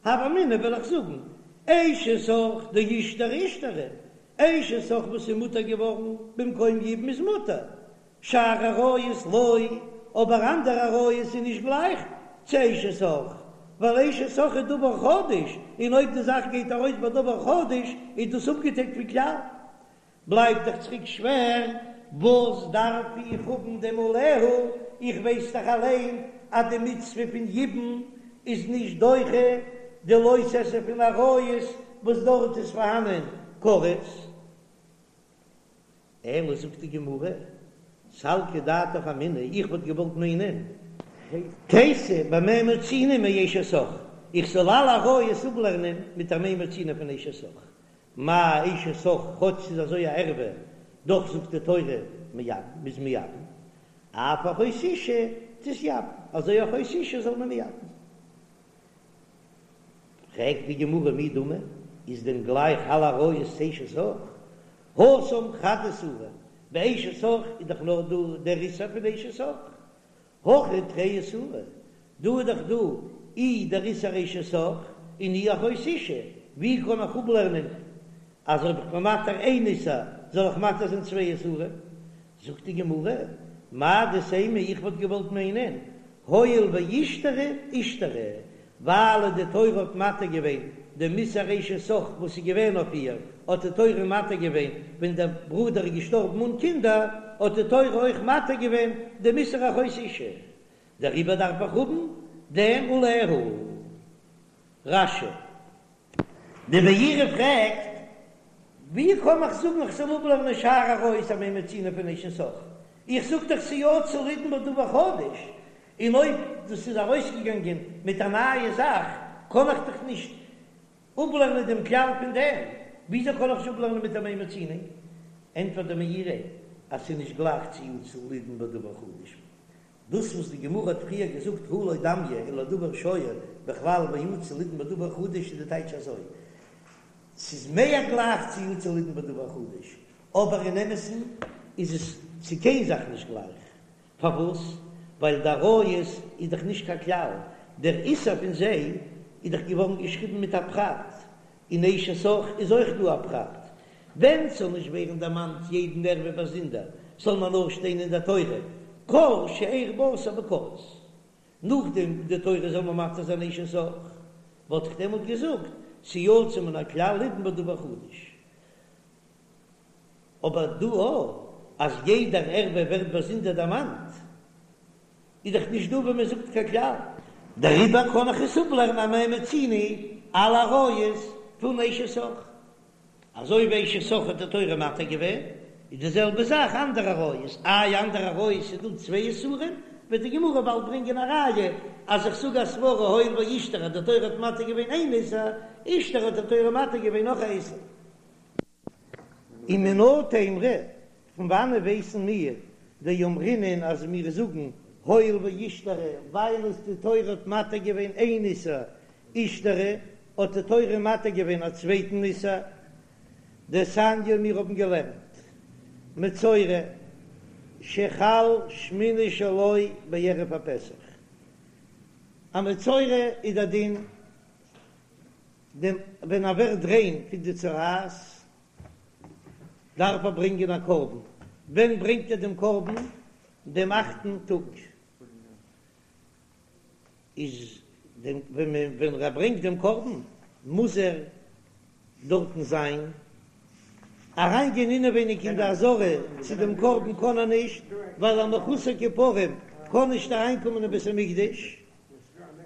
הוה אמינא וועל איך זאגן, אשת אח דאישתראי אישתרי, אשת אח וואס איז מותר געווארן במקום יבום איז מותר, שאר עריות לא, אבער אנדערע עריות איז נישט גלייך צו אשת אח, ווייל אשת אח איז דבר חדש, און אויב די זאך גייט ארויס בדבר חדש איז דאס אפגעטיילט פון כלל. בלייבט דאך צוריק שווער. וואס דארף איך האבן דעם עליה, איך ווייס דאך אליין אז די מצוה פון יבום איז נישט דוחה די לא תעשה פון עריות וואס דארט איז פארהאנען כרת. אלא זאגט די גמרא, סלקא דעתך אמינא, איך וואלט געוואלט מיינען, תיתי במה מצינו מאשת אח, איך זאל אלע עריות אפלערנען מיט א מה מצינו פון אשת אח, מה אשת אח כאטש ס'איז אזוי א ערווה, דאך זאגט די תורה מייבם, מ'איז מייבם, אף אחות אשה תתייבם, אזוי אחות אשה זאל מען מייבם זיין. פרעגט די גמרא מי דמי, איז דען גלייך אלע עריות צו אשת אח? התם חד איסורא, ביי אשת אח איז דאך נאר דא דער איסור פון אשת אח, הכא תרי איסורי, דא איז דאך דא אי דער איסור אשת אח און אי אחות אשה, ווי קען איך אפלערנען אז אויב איך בין מתיר איין איסור זאל איך מתיר זיין צוויי איסורים? זאגט די גמרא, מהו דתימא איך וואלט געוואלט מיינען הואיל ואישתרי אישתרי, ווייל די תורה האט מתיר געווען דעם איסור אשת אח וואס איז געווען אויף איר, האט די תורה מתיר געווען ווען דער ברודער איז געשטארבן אן קינדער, האט די תורה אויך מתיר געווען דעם איסור אחות אשה, דעריבער דארף איך האבן דעם עליה. רש"י. די מאירי פרעגט, ווי קען איך זאגן איך זאל אפלערנען שאר עריות א מה מצינו פון אשת אח? איך זאג דאך ס'יצא לידון בדבר חדש, און אויב דאס איז ארויסגעגאנגען מיט א נייע זאך קען איך דאך נישט אפלערנען דעם כלל פון דעם, וויאזוי קען איך עס אפלערנען מיט א מה מצינו? ענטפערט די מאירי אז ס'איז נישט גלייך צו יצא לידון בדבר חדש. דאס וואס די גמרא האט פריער געזאגט הא לא דמיא אלא לדבר שהיה בכלל ויצא לידון בדבר חדש איז די טייטש אזוי, ס'איז מער גלייך צו יצא לידון בדבר חדש, אבער אין אמת'ן איז עס צו קיין זאך נישט גלייך. פארוואס? ווייל די עריות איז דאך נישט קיין כלל, דער איסור פון זיי איז דאך געווארן געשריבן מיט א פרט, אין אשת אח איז אויך דא א פרט, ווען ס'זאל נישט ווערן דערמאנט יעדן ערווה באזונדער, זאל מען נאר שטיין אין דער תורה כל שאר בשר בכרת. נאכדעם די תורה זאל מען מתיר זיין אשת אח, וואלט איך דעמאלט געזאגט ס'יצא מן הכלל לידון בדבר חדש. אבער דא אז יעדער ערווה ווערט באזונדער דערמאנט, איז דאך נישט דא ווען מען זאגט קיין כלל. דעריבער קען איך עס אפלערנען א מה מצינו אלע עריות פון אשת אח. אזוי ווי אשת אח האט די תורה מתיר געווען, איז די זעלבע זאך אנדערע עריות. איי אנדערע עריות איז דא צוויי איסורים, וועט די גמרא באלד ברענגען א ראיה אז איך זאג א סברא הואיל ואישתרי אז די תורה האט מתיר געווען איין איסור, אישתרי האט די תורה מתיר געווען נאך א איסור. ומנא תימרא, פון וואנען ווייסן מיר דאמרינן אז מיר זאגן הואיל ואישתרי ווייל עס די תורה האט מתיר געווען איין איסור אישתרי האט די תורה מתיר געווען א צווייטן איסור דתניא מיר האבן געלערנט מצורע שחל שמיני שלו בערב הפסח א מצורע איז דער דין דעם ווען ער ווערט ריין פון די צרעת דארף ער ברענגען א קרבן, ווען ברענגט ער דעם קרבן? דעם אכטן טאג איז דעם ווען מען ווען ער ברענגט דעם קרבן מוז ער דארטן זיין, אריין גיין אינעווייניג אין די עזרה צו דעם קרבן קען ער נישט, ווייל א מחוסר כיפורים קען נישט אריינקומען אין בית המקדש.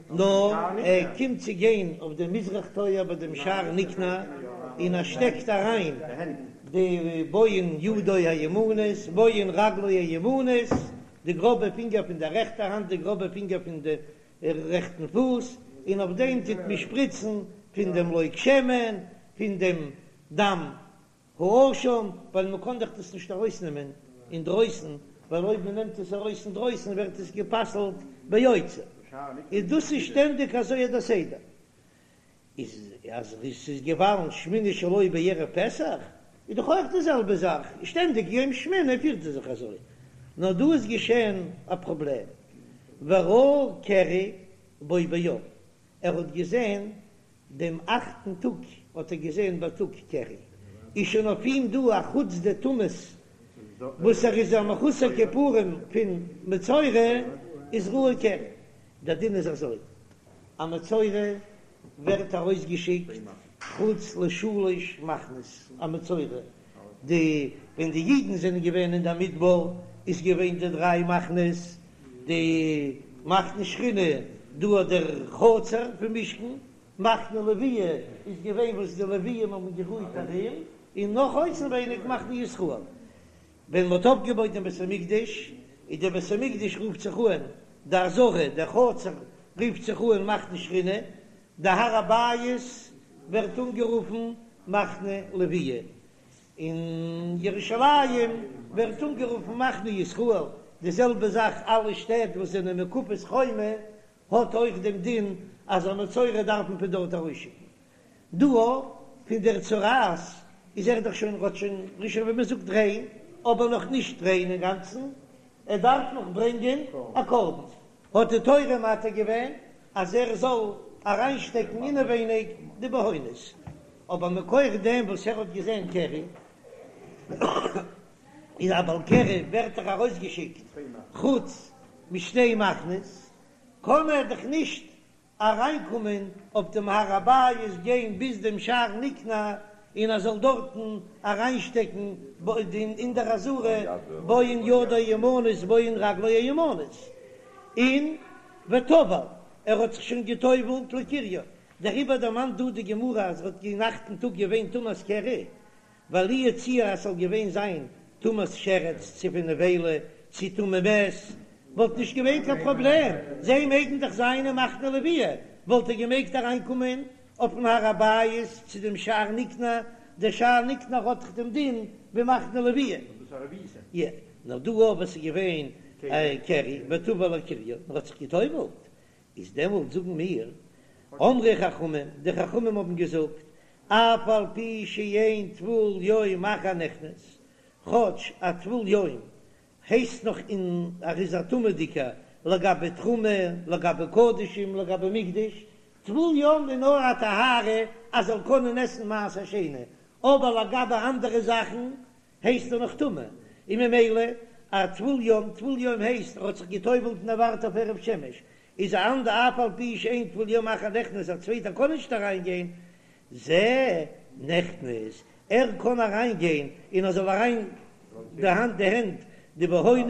נאר ער קומט צו גיין אויף דעם מזרח טויער ביי דעם שער ניקנור, און ער שטעקט אריין די בוהן ידו הימנית, בוהן רגלו הימנית, די גראבע פינגער פון דער רעכטער האנט, די גראבע פינגער פון די רעכטן פוס, און אויף דעם טוט מען שפריצן פון דעם לוג שמן, פון דעם דם האשם, ווייל מען קען דאך דאס נישט ארויסנעמען אינדרויסן, ווייל אויב מען נעמט עס ארויס אינדרויסן ווערט עס גע'פסל'ט ביוצא, איז דאס איז שטענדיג אזוי דער סדר, איז אז עס איז געווארן שמיני שלו בערב פסח, איז דאך אויך די זעלבע זאך, שטענדיג יום שמיני פירט ער זיך אזוי, נאר דא איז געשען א פראבלעם, וראה קרי בו ביום, ער האט געזען דעם אכטן טאג האט ער געזען בייטאג קרי, איז שוין אויף אים דא א חוץ די טומאות וואס ער איז א מחוסר כיפורים פון מצורע איז ראה קרי, דער דין איז אזוי, א מצורע ווערט ארויסגעשיקט חוץ לשלש מחנות, א מצורע. די ווען די אידן זענען געווען אין דער מדבר איז געווען די דריי מחנות, די מחנה שכינה דא אט דער חצר פון משכן, מחנה לוויה איז געווען וואס די לוויים האבן גערוהט ארום, און נאך אויסנווייניג מחנה ישראל. ווען מ'האט אויפגעבויט דעם בית המקדש, איז דער בית המקדש רופט זיך אן די עזרה, דער חצר רופט זיך אן מחנה שכינה, די הר הבית ווערט אנגערופן מחנה לוויה, און ירושלים ווערט אנגערופן מחנה ישראל, די זעלבע זאך אלע שטעט וואס זענען מוקפות חומה האט אויך דעם דין אז א מצורע דארף מען פון דארט ארויסשיקן. דא פון דער צרעת איז ער דאך שוין האט שוין רישא ווי מען זאגט ריין, אבער נאך נישט ריין אינגאנצן, ער דארף נאך ברענגען א קרבן, האט די תורה מתיר געווען אז ער זאל אריינשטעקן אינעווייניג די בהונות, אבער מכח דעם וואס ער האט געזען קרי, איז א בעל קרי ווערט דאך ארויסגעשיקט חוץ משתי מחנות, קען ער דאך נישט אריינקומען אויף דעם הר הבית גיין ביז דעם שער ניקנור און ער זאל דארטן אריינשטעקן אין דער עזרה בהן ידו הימנית בהן רגלו הימנית און וטבל ער האט זיך שוין געטובלט לקריו דעריבער דערמאנט דא די גמרא אז ער האט אין אכטן טאג געווען טומאת קרי ווייל לו יצוייר אז ס'זאל געווען זיין טומאת שרץ צו פון נבילה צו טמא מת וואלט נישט געווען קיין פראבלעם, זיי מעגן דאך זיין אין מחנה לוויה, וואלט ער געמעגט אריינקומען אויפן הר הבית צו דעם שער ניקנור, דער שער ניקנור האט דאך דעם דין ווי מחנה לוויה. יא, נאר דא אויב עס איז געווען קרי וטבל לקריו, ער האט זיך גע'טובל'ט, איז דעמאלט זאגן מיר, אמרו חכמים, די חכמים האבן געזאגט, אף על פי שאין טבול יום אחר נכנס, כאטש א טבול יום הייסט נאך אין ער איז א טמא'דיגער לגבי תרומה, לגבי קדשים, לגבי מקדש, טבול יום איז נאר א טהרה אז זאל קענען עסן מעשר שני, אבער לגבי אנדערע זאכן הייסט ער נאך טמא, און ממילא א טבול יום, טבול יום הייסט ער האט זיך גע'טובל'ט און ער ווארט אויף הערב שמש, איז א אנדער אף על פי שאין טבול יום אחר נכנס א צווייטער קען נישט אריין גיין, זה נכנס ער קען אריין גיין און ער זאל אריין די האנט די הענט די בהונות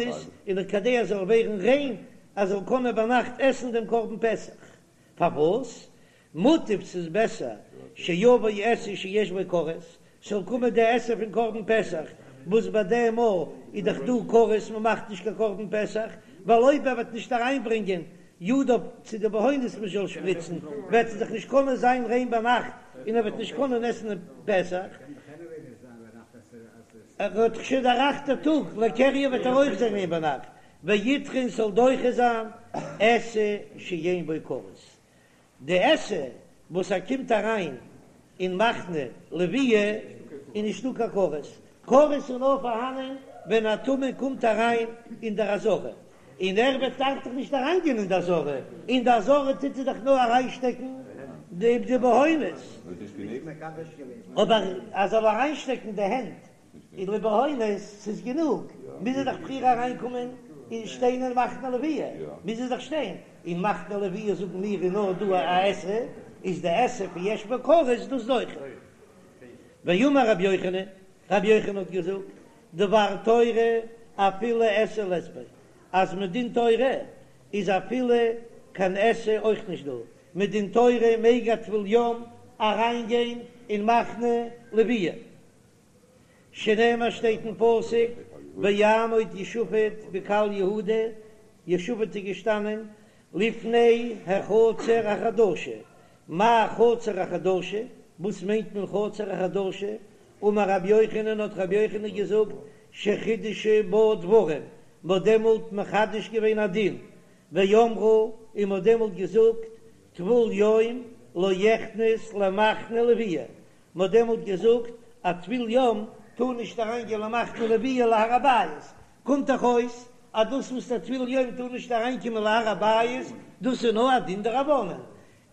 און כדי ער זאל ווערן ריין ער זאל קענען ביינאכט עסן דעם קרבן פסח, פארוואס מוטב ס'איז בעסער שיבוא עשה שיש בו כרת, ס'זאל קומען די עשה פון קרבן פסח, וואס ביי דעם מאל איז דאך דא כרת מ'מאכט נישט קיין קרבן פסח, ווייל אויב ער וועט נישט אריינברענגען ידיו צו די בהונות מ'זאל שפריצן, וועט ער דאך נישט קענען זיין ריין ביינאכט און ער וועט נישט קענען עסן פסח. ער האט דאך שוין דער אכטער טאג לקריו וועט ער אויך זיין ריין ביינאכט, וידחה און ס'זאל דוחה זיין עשה שאין בו כרת, די עשה וואס ער קומט אריין אין מחנה לוויה איז נישטא קיין כרת, כרת איז נאר פארהאנען ווען א טמא קומט אריין אין דער עזרה, און ער וועט דארף דאך נישט אריינגיין אין די עזרה, אין די עזרה טוט ער דאך נאר אריינשטעקן די בהונות, אבער ער זאל אריינשטעקן די הענט אין די בהונות, ס'איז גענוג, מוז ער דאך פריער אריינקומען און שטיין אין מחנה לוויה, מוז ער דאך שטיין אין מחנה לוויה זאגן מיר איז נאר דא א עשה, איז די עשה פון יש בו כרת דאס דוחה. ואמר רבי יוחנן, רבי יוחנן האט געזאגט, דבר תורה אפילו עשה לית ביה, אז מדין תורה איז אפילו קיין עשה אויך נישט דא, מדין תורה מעג א טבול יום אריינגיין אין מחנה לוויה. שנאמר שטייט אין פסוק ויעמוד יהושפט בקהל יהודה, יהושפט איז געשטאנען לפני החצר החדשה, מאי חצר החדשה? וואס מיינט מען חצר החדשה? אמר רבי יוחנן האט רבי יוחנן געזאגט שחידשו בה דברים, מען האט דעמאלט מחדש געווען א דין, ואמרו און מען האט דעמאלט געזאגט טבול יום לא יכנס למחנה לוויה, מען האט דעמאלט געזאגט א טבול יום טאר נישט אריין גיין למחנה לוויה להר הבית, קומט דאך אויס אז דאס וואס א טבול יום טאר נישט אריין קומען להר הבית דאס איז נאר א דין דרבנן,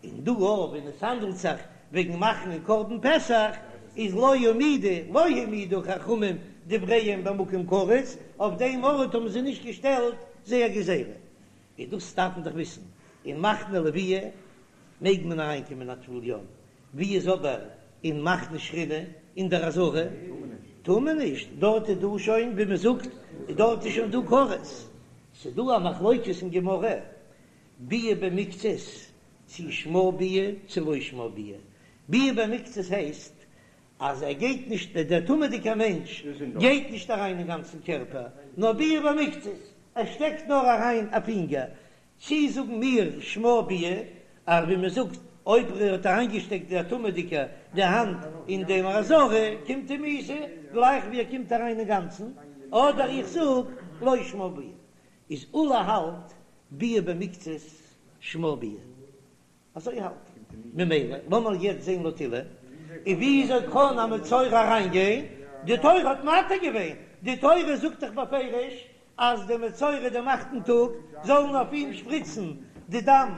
און דא אויך ווען עס האנדלט זיך וועגן מאכן א קרבן פסח איז לא העמידו לא העמידו חכמים דבריהם במקום כרת, אויף דעם ארט האבן זיי נישט געשטעלט זייער גזירה, און דאס דארף מען דאך וויסן, אין מחנה לוויה מעג מען אריין קומען א טבול יום, ווי איז אבער אין מחנה שכינה אין דער עזרה? טאר מען נישט, דארט איז דא שוין ווי מען זאגט דארט איז שוין דא כרת, ס'דא א מחלוקת אין גמרא ביאה במקצת צי שמה ביאה צי לא שמה ביאה, ביאה במקצת הייסט אז ער גייט נישט, דער טמא'דיגער מענטש גייט נישט אריין אין גאנצן קערפער, נאר ביאה במקצת, ער שטעקט נאר אריין א פינגער, צי זאגן מיר שמה ביאה, אז ווי מען זאגט אויב ער האט אריינגעשטעקט דער טמא'דיגער די האנט אין דעם עזרה קומט אים מיתה גלייך ווי ער קומט אריין אינגאנצן, אדער איך זאג לא שמה ביאה, איז עולא האלט ביאה במקצת שמה ביאה. אזוי האלט ער. ממילא לאמיר יעצט זען לויט עולא, און וויאזוי קען א מצורע אריינגיין? די תורה האט מתיר געווען, די תורה זאגט דאך בפירוש אז די מצורע דעם אכטן טאג זאלן אויף אים שפריצן די דם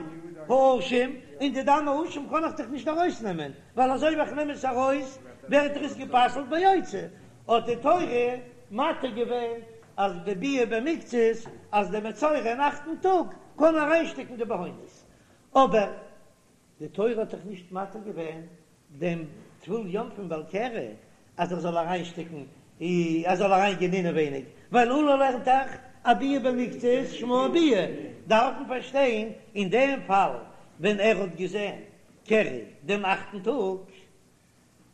האשם, און די דם האשם קען איך דאך נישט ארויסנעמען, ווייל אזוי ווי איך נעם עס ארויס ווערט דאך עס גע'פסל'ט ביוצא, האט די תורה מתיר געווען אז בביאה במקצת אז די מצורע אין אכטן טאג קען אריינשטעקן די בהונות, אבער די תורה האט דאך נישט מתיר געווען דעם טבול יום פון בעל קרי אז ער זאל אריינשטעקן ער זאל אריינגיין אינעווייניג, ווייל עולא לערנט דאך אז ביאה במקצת שמה ביאה, דארף מען פארשטיין אין דעם פאל ווען ער האט געזען קרי דעם אכטן טאג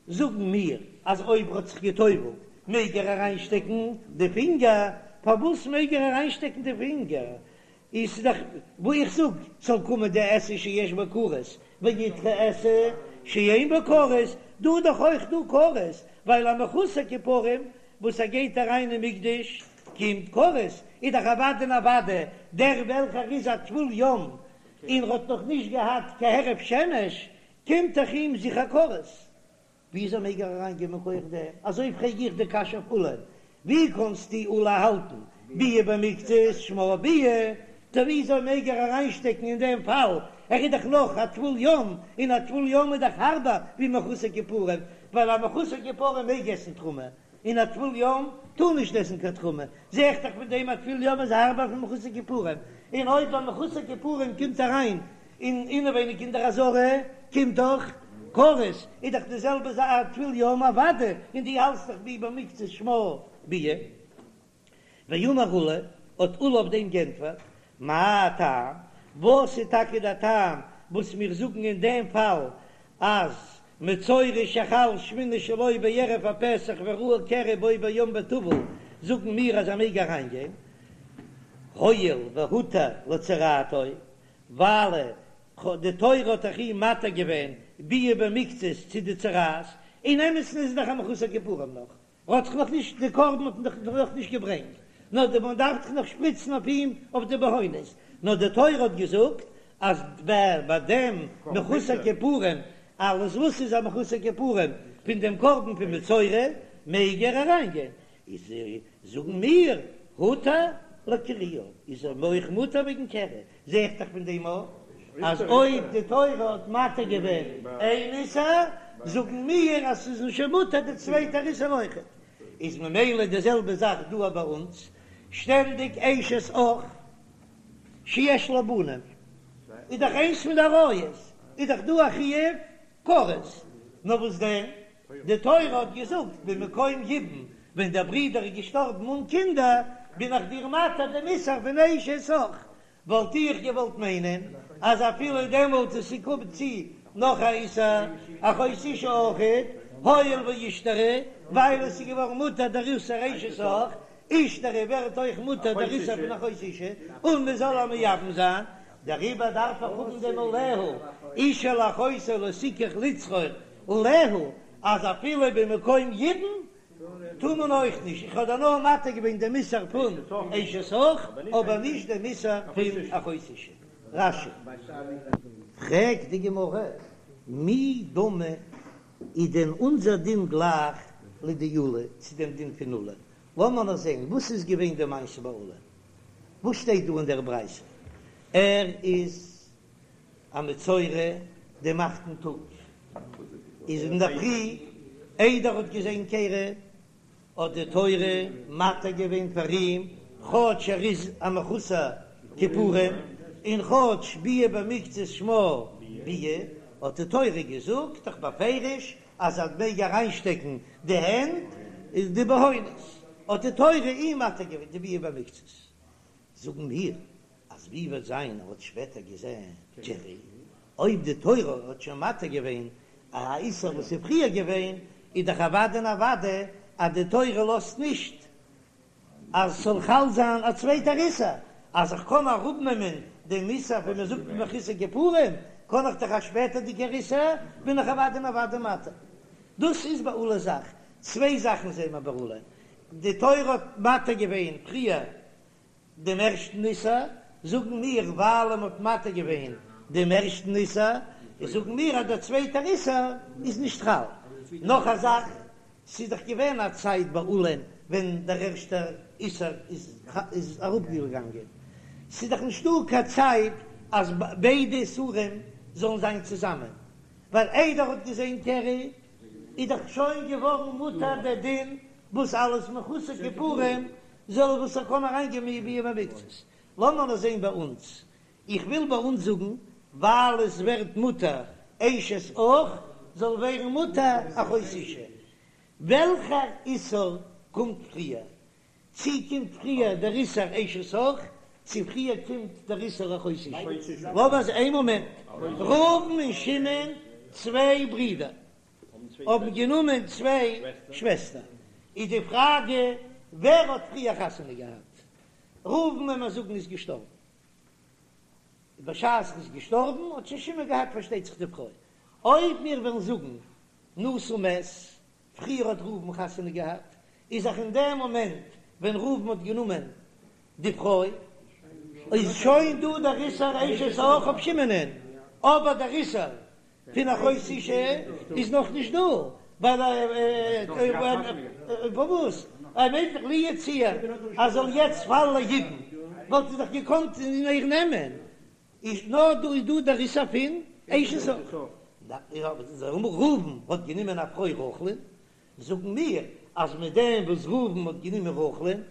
זאגן מיר אז אויב ער האט זיך גע'טובל'ט מעג ער אריינשטעקן די פינגער, פארוואס מעג ער אריינשטעקן די פינגער? איז דאך וואו איך זאג ס'זאל קומען די עשה שיש בה כרת וידחה עשה שאין בה כרת, דא איז דאך אויך דא כרת, ווייל א מחוסר כיפורים וואס ער גייט אריין אין מקדש קומט כרת, איז דאך אוודאי און אוודאי דער וועלכער איז א טבול יום און ר'האט נאך נישט געהאט קיין הערב שמש קומט דאך אים זיכער כרת. וויאזוי מעג ער אריין גיין מכח דעם? אזוי פרעג איך די קשיא אויף עולא, ווי קענסטו עולא האלטן ביאה במקצת שמה ביאה, טא וויאזוי מעג ער אריינשטעקן אין דעם פאל, ער איז דאך נאך א טבול יום, און א טבול יום איז דאך הארבער ווי מחוסר כיפורים, ווייל א מחוסר כיפורים מעג עסן תרומה, און א טבול יום טאר נישט עסן קיין תרומה, זע איך דאך פון דעם אז טבול יום איז הארבער פון מחוסר כיפורים, און אויב א מחוסר כיפורים קומט אריין אין אינעווייניג אין דער עזרה קומט דאך כרת, איז דאך די זעלבע זאך א טבול יום אוודאי, און דו האלטסט דאך ביאה במקצת שמה ביאה. ואמר עולא, האט עולא אויף דעם גענטפערט, מה טעם, וואס איז טאקע דער טעם וואס מיר זאגן אין דעם פאל אז מצורע שחל שמיני שלו בערב הפסח וראה קרי בו ביום וטבל זאגן מיר אז ער מעג אריינגיין, הואיל והותר לצרעתו, ווייל די תורה האט דאך אים מתיר געווען ביאה במקצת צו די צרעת, אין אמת'ן איז ער דאך א מחוסר כיפורים נאך, ער האט דאך נאך נישט די קרבן האט מען דאך נאך נישט געברענגט, נאר די מען דארף דאך נאך שפריצן אויף אים אויף די בהונות, נאר די תורה האט געזאגט אז ביי דעם מחוסר כיפורים אלעס וואס איז א מחוסר כיפורים פון דעם קרבן פון מצורע מעג ער אריינגיין, איז זאגן מיר הותר לקריו איז ער אויך מותר וועגן קרי, זע איך דאך פון דעם אויך אז אויב די תורה האט מתיר געווען איין איסור, זאגן מיר אז ס'איז שוין מותר די צווייטע איסור אויכעט. איז ממילא די זעלבע זאך דא ביי אונז, שטענדיג אשת אח שיש לה בנים איז דאך איינס פון די עריות, איז דאך דא א חיוב כרת, נאר וואס דען, די תורה האט געזאגט במקום יבום, ווען דער ברודער איז געשטארבן אן קינדער, בין איך דיר מתיר דעם איסור פון אשת אח, וואלט איך געוואלט מיינען אז אפילו דעמאלט עס קומט צו נאך א איסור אחות אשה אויכעט, הואיל ואישתרי, ווייל עס איז געווארן מותר דער איסור אשת אח, אישתרי ווערט אויך מותר דער איסור פון אחות אשה, און מען זאל איר מייבם זיין, דעריבער דארף איך האבן דעם עליה, אשה אל אחותה לא תקח לצרור עליה, אז אפילו במקום יבום טאר מען אויך נישט, איך האב דיר נאר מתיר געווען דעם איסור פון אשת אח, אבער נישט דעם איסור פון אחות אשה. רש"י. פרעגט די גמרא, מי דמי איז דען אונזער דין גלייך לדעולא צו דעם דין פון עולא? לאמיר נאר זען וואס איז געווען די מעשה ביי עולא, וואס שטייט דא אין דער ברייתא? ער איז א מצורע דעם אכטן טאג, איז אינדערפרי איידער ער האט געזען קרי, האט די תורה מתיר געווען פאר אים, כאטש ער איז א מחוסר כיפורים, און כאטש ביאה במקצת שמה ביאה, האט די תורה געזאגט דאך בפירוש אז ער מעג אריינשטעקן די הענט. די בהונות, האט די תורה אים מתיר געווען די ביאה במקצת, זאגן מיר אז ווי וועט זיין ער האט שפעטער געזען קרי, אויב די תורה האט שוין מתיר געווען א איסור וואס איז פריער געווען, איז דאך אוודאי און אוודאי אז די תורה לאזט נישט אז ס'זאל חל זיין א צווייטער איסור, אז איך קען אראפנעמען דעם איסור ווי מען זאגט מחוסר כיפורים, קען איך דאך א שפעטערדיגער איסור, בין איך אוודאי און אוודאי מתיר. דאס איז ביי עולא זאך. צוויי זאכן זעהן מיר ביי עולא, די תורה האט מתיר געווען פריער דעם ערשטן איסור, זאגן מיר ווייל מען האט מתיר געווען דעם ערשטן איסור, זאגן מיר אז דער צווייטער איסור איז נישט חל. נאך א זאך, ס'איז דאך געווען א צייט ביי עולא'ן ווען דער ערשטער איסור איז אראפגעגאנגען, ס'איז דאך נישטא קיין צייט אז ביידע איסורים זאלן זיין צוזאמען, ווייל איידער ער האט געזען קרי איז דאך שוין געווארן מותר דער דין וואס אלס מחוסר כיפורים זאל וואס ער קען אריינגיין ביאה במקצת. לאמיר נאר זען ביי אונז, איך וויל ביי אונז זאגן ווייל עס ווערט מותר אשת אח זאל ווערן מותר אחות אשה, וועלכער איסור קומט פריער? צי קומט פריער דער איסור אשת אח, צי פריער קומט דער איסור אחות אשה? לאמיר זען איין מאמענט, ראובן און שמעון צוויי ברידער האבן גענומען צוויי שוועסטער, איז די פראגע ווער האט פריער חתונה געהאט? ראובן ווען מיר זאגן איז געשטארבן, בשעת ער איז געשטארבן האט שוין שמעון געהאט פארשטייט זיך די פרוי, אויב מיר וועלן זאגן נשא ומת, פריער האט ראובן חתונה געהאט, איז דאך אין דעם מאמענט ווען ראובן האט גענומען די פרוי, איז שוין דא דער איסור אשת אח אויף שמעונ'ען, אבער דער איסור פון אחות אשה איז נאך נישט דא, ווייל פארוואס ער מיינט דאך לו יצויר אז זאל יעצט פאלן ליבום וואלט ער דאך געקאנט איר נעמען, איז נאר דא איז דא דער איסור פון אשת אח. ראובן האט גענומען א פרוי רחל'ן, זאגן מיר אז מיט דעם וואס ראובן האט גענומען רחל'ן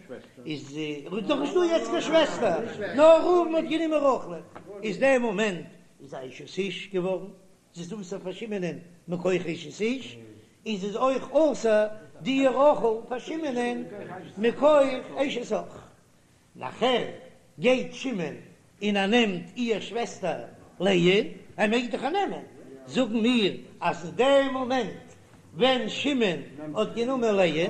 איז דאך נישט דא יעצט קיין שוועסטער, נאר ראובן האט גענומען רחל'ן, איז דער מאמענט איז א אשת איש געווארן, זי איז אסור פאר שמעונ'ען מכח אשת איש, און זי איז אויך אסור די רחל פאר שמעונ'ען מכח אשת אח. נאכער גייט שמעון און ער נעמט איהר שוועסטער לאה, ער מעג דאך איר נעמען, זאגן מיר אז אין דעם מאמענט ווען שמעון האט גענומען לאה,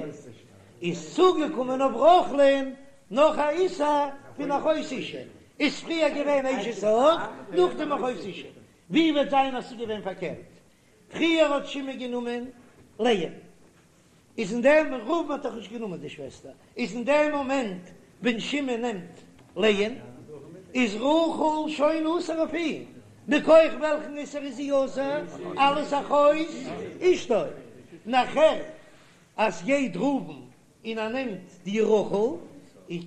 איז צוגעקומען אויף רחל'ן נאך א איסור פון אחות אשה, איז פריער געווען אשת אח, נאכדעם אחות אשה, ווי וועט זיין אז ס'איז געווען פארקערט, פריער האט שמעון גענומען לאה, איז אין דעם, ראובן האט דאך נישט גענומען די שוועסטער, איז אין דעם מאמענט ווען שמעון נעמט לאה'ן, איז רחל שוין אסור אויף אים, מכח וועלכן איסור איז זי אסור? אלס אחות אשתו, נאכער אז גייט ראובן און ער נעמט די רחל, און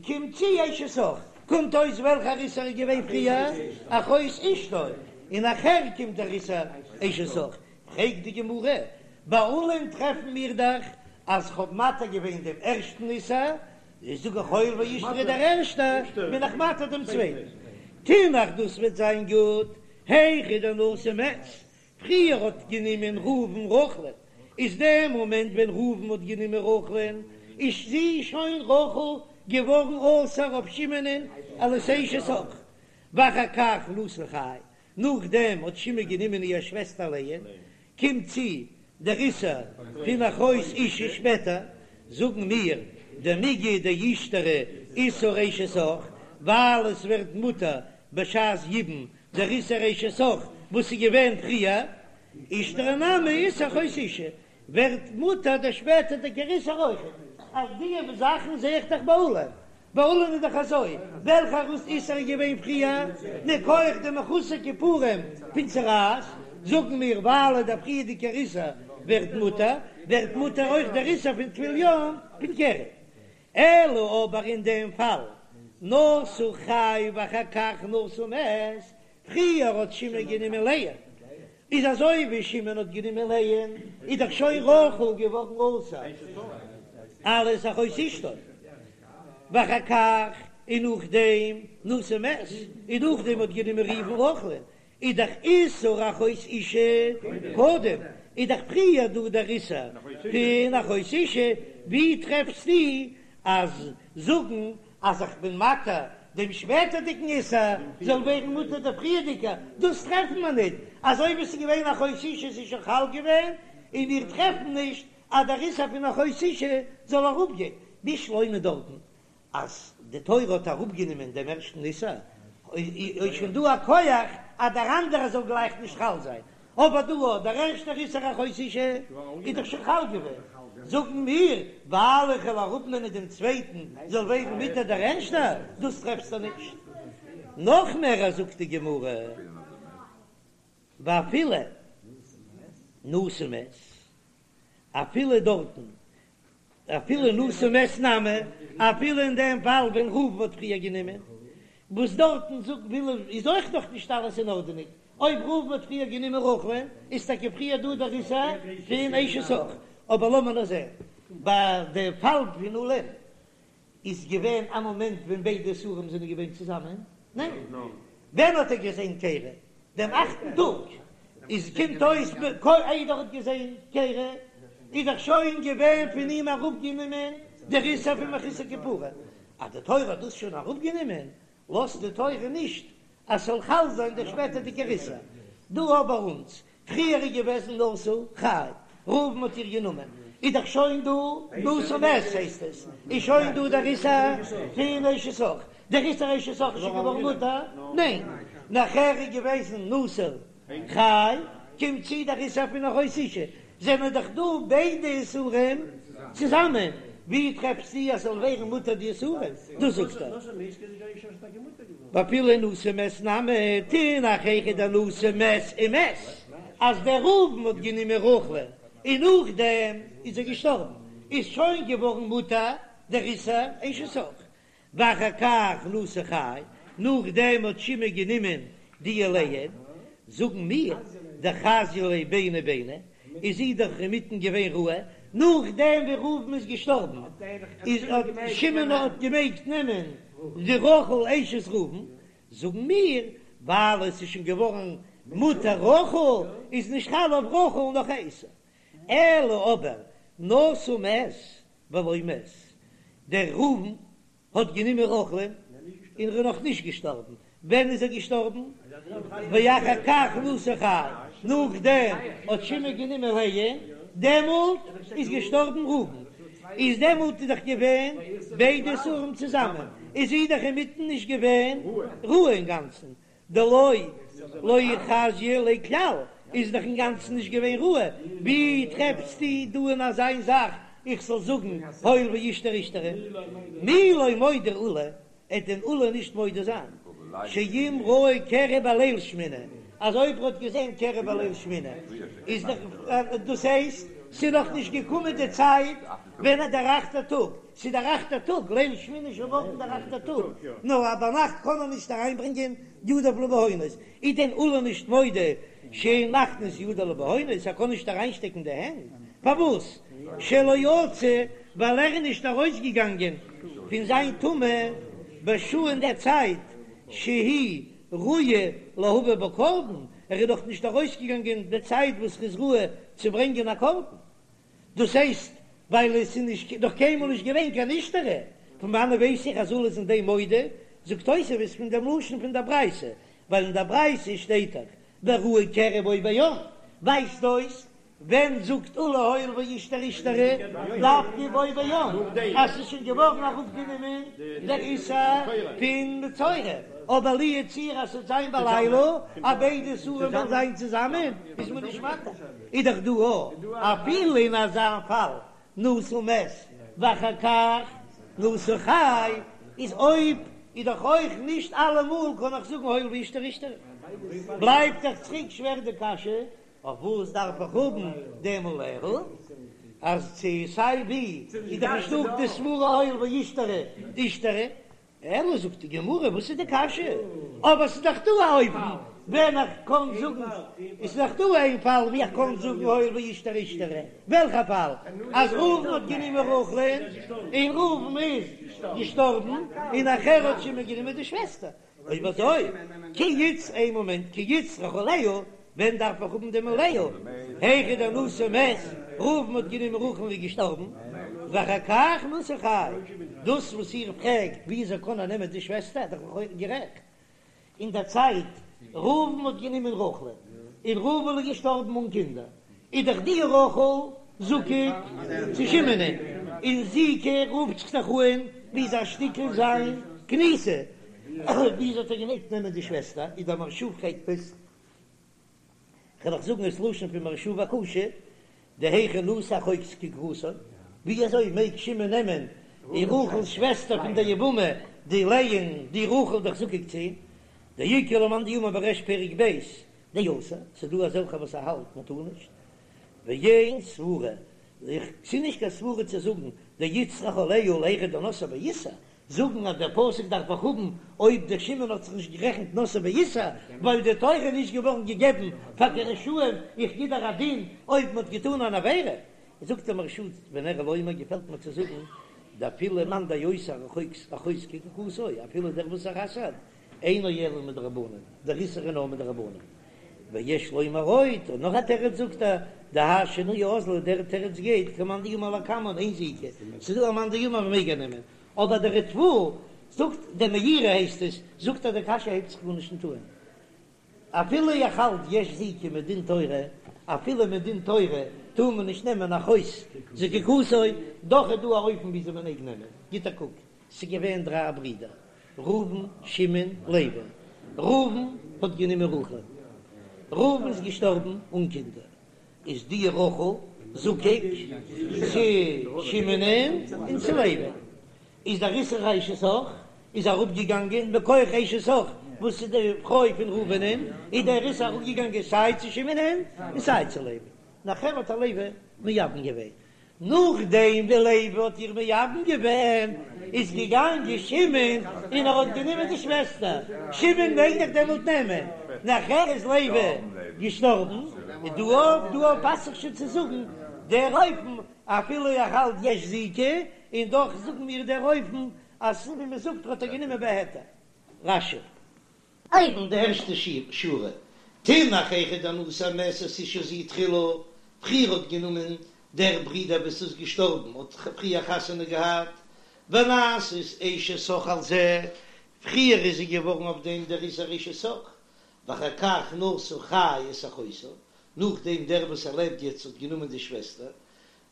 קומט צו אשת אח, קומט אויס וועלכער איסור איז געווען פריער, אחות אשתו, און נאכער קומט דער איסור אשת אח, פרעגט די גמרא, ביי עולא'ן טרעפן מיר דאך אז כ'האב מתיר געווען דעם ערשטן איסור, איז זאג איך הואיל ואישתרי דער ערשטער, בין איך מתיר דעם צווייטן. תינח דאס וועט זיין גוט, היכא דנשא מת, פריער האט גענומען ראובן רחל'ן, איז דער מאמענט ווען ראובן האט גענומען רחל'ן, איז זי שוין רחל געווארן אסור אויף שמעונ'ען אלס אשת אח, ואחר כך נשא חי, נאכדעם האט שמעון גענומען איר שוועסטער לאה, קומט צו דער איסור פון אחות אשה שפעטער, זאגן מיר דמיגא דאישתרי איסור אשת אח, ווייל עס ווערט מותר בשעת יבום דער איסור אשת אח וואס איז געווען פריער, אישתרי נמי איסור אחות אשה, ווערט מותר דער שפעטערדיגער איסור אויכעט. אז די זאכן זע איך דאך ביי עולא, ביי עולא'ן איז דאך אזוי, וועלכער איסור איז געווען פריער, מכח די מחוסר כיפורים פון צרעת, זאגן מיר ווייל דער פריערדיגער איסור ווערט מותר, ווערט מותר אויך דער איסור פון טבול יום פון קרי. אלא אבער אין דעם פאל, נשא חי ואחר כך נשא מת, פריער האט שמעון גענומען לאה, איז אזוי ווי שמעון האט גענומען לאה, איז דאך שוין רחל געווארן אסור אלס אחות אשתו, ואחר כך און נאכדעם נשא מת, און נאכדעם האט גענומען ראובן רחל'ן, איז דאך איסור אחות אשה קודם, איז דאך פריער דא דער איסור פון אחות אשה. ווי טרעפסטו אז זאגן אז איך בין מתיר דעם שפעטערדיגן איסור זאל ווערן מותר דער פריערדיגער? דאס טרעפן מיר ניט, אזוי ווי עס איז געווען אחות אשה איז שוין חל געווען, און מיר טרעפן נישט אז דער איסור פון אחות אשה זאל אראפגיין, בשלמא דארטן אז די תורה האט אראפגענומען דעם ערשטן איסור, איז שוין דא א כח אז דער אנדערער זאל גלייך נישט חל זיין, אבער דא אט דער ערשטער איסור אחות אשה איז דאך שוין חל געווען, זאגן מיר, ווייל איך וועל אראפנעמען דעם צווייטן זאל ווערן מותר דער ערשטער, דאס טרעפסטו נישט. נאך מער זאגט די גמרא, ואפילו נשא מת, אפילו דארטן אפילו נשא מת נמי, אפילו אין דעם פאל ווען ראובן האט פריער גענומען, וואס דארטן זאגט וויל איז אויך נאך נישט אלעס אין ארדענונג, אויב ראובן האט פריער גענומען רחל'ן איז טאקע פריער דא דער איסור פון אשת אח, אבער לאמיר נאר זען ביי די פאל פון עולא'ן איז געווען א מאמענט ווען ביידע איסורים זענען געווען צוזאמען? ניין. ווען האט ער געזען קרי? דעם אכטן טאג. איז קומט אויס איידער ער האט געזען קרי איז דאך שוין געווען פון אים אראפגענומען דער איסור פון מחוסר כפרה. אז די תורה האט דאס שוין אראפגענומען לאזט די תורה נישט אז ס'זאל חל זיין דער שפעטערדיגער איסור. דא אבער אונז, פריער איז געוועזן נשא חי, ראובן האט איר גענומען, איז דאך שוין דא נשא מת הייסט עס, איז שוין דא דער איסור פון אשת אח, דער איסור אשת אח איז שוין געווארן מותר? ניין, נאכער איז געוועזן נשא חי, קומט צו דער איסור פון אחות אשה, זענען דאך דא ביידע איסורים צוזאמען, ווי טרעפסטו אז ס'זאל ווערן מותר די איסורים? דאס זאגט ער. ואפילו נשא מת נמי, תינח היכא דנשא מת ומת, אז דער ראובן האט גענומען רחל'ן און נאכדעם איז ער געשטארבן, איז שוין געווארן מותר דער איסור אשת אח, ואחר כך נשא חי, נאכדעם האט שמעון גענומען די לאה, זאגן מיר, דחזיא ליה ביני ביני, איז זי דאך אינמיטן געווען ראוי, נאכדעם ווי ראובן איז געשטארבן, איז האט שמעון האט געמעגט נעמען די רחל אשת ראובן, זאגן מיר, ווייל עס איז שוין געווארן מותר רחל, איז נישט חל אויף רחל נאך א איסור, אלא אבער נשא מת ולא מת, דער ראובן האט גענומען רחל'ן און ער איז נאך נישט געשטארבן, ווען איז ער געשטארבן? ואחר כך נשא חי, נאכדעם האט שמעון גענומען לאה, דעמאלט איז געשטארבן ראובן, איז דעמאלט איז דאך געווען ביידע איסורים צוזאמען, איז זי דאך אינמיטן נישט געווען ראוי אינגאנצן, דלא לא חזיא ליה כלל איז דאך אינגאנצן נישט געווען ראוי, ווי טרעפסטו דא אין אזיין זאך איך זאל זאגן הואיל ואישתרי אישתרי? מי לא מודה עולא, עט דען עולא נישט מודה זיין שאם ראה קרי בליל שמיני, אז אויב ער האט געזען קרי בליל שמיני איז דאך דאס הייסט ס'איז נאך נישט געקומען די צייט ווען דער אכטער טאג ס'איז דער אכטער טאג, ליל שמיני איז שוין מארגן דער אכטער טאג, נו א ביינאכט קען מען נישט אריינברענגען ידיו לבהונות, איז דען עולא נישט מודה שאין מכניס ידו לבהונות, ער קען נישט אריינשטעקן די הענט, פארוואס? שלא יצא, ווייל ער איז נישט ארויסגעגאנגען פון זיין טומאה בשעה אין דער צייט שהיא ראויה להביא בה קרבן, ער איז נאך נישט ארויסגעגאנגען די צייט וואס ער איז ראוי צו ברענגען א קרבן. דאס הייסט ווייל עס איז נישט נאך קיינמאל נישט געווען קיין אישתרי, פון וואנען ווייס איך אז עולא איז אין דעם מודה? זאגט תוספות פון דעם לשון פון דער ברייתא, ווייל אין דער ברייתא שטייט דאך וראה קרי בו ביום, ווייזט אויס ווען זאגט עולא הואיל ואישתרי אישתרי דווקא בו ביום אז ס'איז שוין געווארן אראפגענומען דער איסור פון מצורע, אבער לו יצוייר אז ס'וועט זיין בלילה אז ביידע איסורים וועלן זיין צוזאמען איז מען נישט מתיר. איז דאך דא אפילו אין אזא פאל נשא מת ואחר כך נשא חי, איז אויב איז דאך אויך נישט אלעמאל קען איך זאגן הואיל ואישתרי אישתרי, בלייבט דאך צוריק שווער די קשיא, אויף וואס דארף איך האבן דעם עליה, אז צו סיי ווי איז דאך נישטא די סברא הואיל ואישתרי אישתרי, אלא זאגט די גמרא, וואס איז די קשיא? אבער ס'איז דאך דא א אופן ווען איך קען זאגן, עס איז דאך דא איין פאל ווי איך קען זאגן הואיל ואישתרי אישתרי, וועלכע פאל? אז ראובן האט גענומען רחל'ן און ראובן איז געשטארבן און נאכער האט שמעון גענומען די שוועסטער, אויב אזוי כי איצ איין מאמענט כי איצטריך עליה, ווען דארף איך האבן דעם עליה? היכא דנשא מת, ראובן האט גענומען רחל און איז געשטארבן. ואחר כך נשא חי, דאס וואס איר פרעגט וויאזוי קען ער נעמען די שוועסטער, איז דאך לכאורה גערעכט, אין דער צייט ראובן האט גענומען רחל'ן, און ראובן איז געשטארבן אן קינדער, איז דאך די רחל זקוק צו שמעונ'ען, און זיקה רופט זיך דאך אן ווי אזא שטיקל זיין כניסה, וויאזוי האט ער געמעגט נעמען די שוועסטער, איז דער מהרש"א פרעגט עס. כ'וועל אייך זאגן עס לשון פון מהרש"א וקשה, דהיכי נשא אחות זקוקתו, ווי אזוי מעג שמעון נעמען די רחל'ס שוועסטער פון דער יבמה די לאה'ן די רחל דאך זקוק צו אים, דאיכא למאן דאמר בריש פרק ב' דאסור, ס'דא אזעלכע וואס האלט מען טאר נישט, ואין סברה, ס'איז נישט קיין סברה צו זאגן דאיצטריך עליה להיכא דנשאה באיסור, זאגן אז דער פסוק דארף איך האבן אויב דער שמעון האט זיך נישט גערעכנט נשאה באיסור, ווייל די תורה איז נישט געווארן געגעבן פאר די רשעים, איך גיב דיר א דין אויב מען האט געטאן אן עבירה. זאגט דער מהרש"א ונראה לומר געפעלט מיר צו זאגן דאפילו מאן דאוסר אחות זקוקתו אפילו דער וואס ער אסר'ט אינו אלא מדרבנן, דער איסור איז נאר מדרבנן. ויש לומר עוד, און נאך א תירוץ זאגט ער, דהאי שינויא אזלא, דער תירוץ גייט כמאן דאמר לקמן אין זיקה, ס'איז דא א מאן דאמר מ'מעג איר נעמען, אבער דער ריטב"א זאגט, דער מאירי הייסט עס, זאגט אז די קשיא הייבט זיך גארנישט נישט אן. אפילו איך האלט יש זיקה מדין תורה, אפילו מדין תורה טאר מען נישט נעמען אחות זקוקתו, דאך איז דא א אופן וויאזוי מען מעג נעמען, גיט א קוק, ס'איז געווען דריי ברידער, ראובן, שמעון, לוי. ראובן האט גענומען רחל. ראובן איז געשטארבן אן קינדער. איז די רחל זקוק צו שמעונ'ען און צו לוי. איז דער איסור אשת אח איז אראפגעגאנגען מכח אשת אח וואס איז די פרוי פון ראובנ'ען, איז דער איסור אראפגעגאנגען סיי צו שמעונ'ען און סיי צו לוי. נאכער האט איר לוי מייבם געווען. נאכדעם ווי לוי האט איר מייבם געווען, איז געגאנגען שמעון און ער האט גענומען די שוועסטער, שמעון מעג דאך דעמאלט נעמען, נאכער איז לוי געשטארבן, און דא אויף דא אויף פאסט זיך שוין צו זאגן דער אופן, אפילו איך האלט יש זיקה, און דאך זאגן מיר דער אופן אז ווי מען זאגט האט ער גענומען בהיתר. רש"י. אויבן די ערשטע שורה, תינח היכא דנשא המתת אשה זו תחילה, פריער האט גענומען דער ברודער וואס איז געשטארבן האט פריער חתונה געהאט, ונעשית אשת אח על זה, פריער איז זי געווארן אויף דעם דער איסור אשת אח, ואחר כך נשא חי את אחותה, נאכדעם דער וואס ער לעבט יעצט האט גענומען די שוועסטער,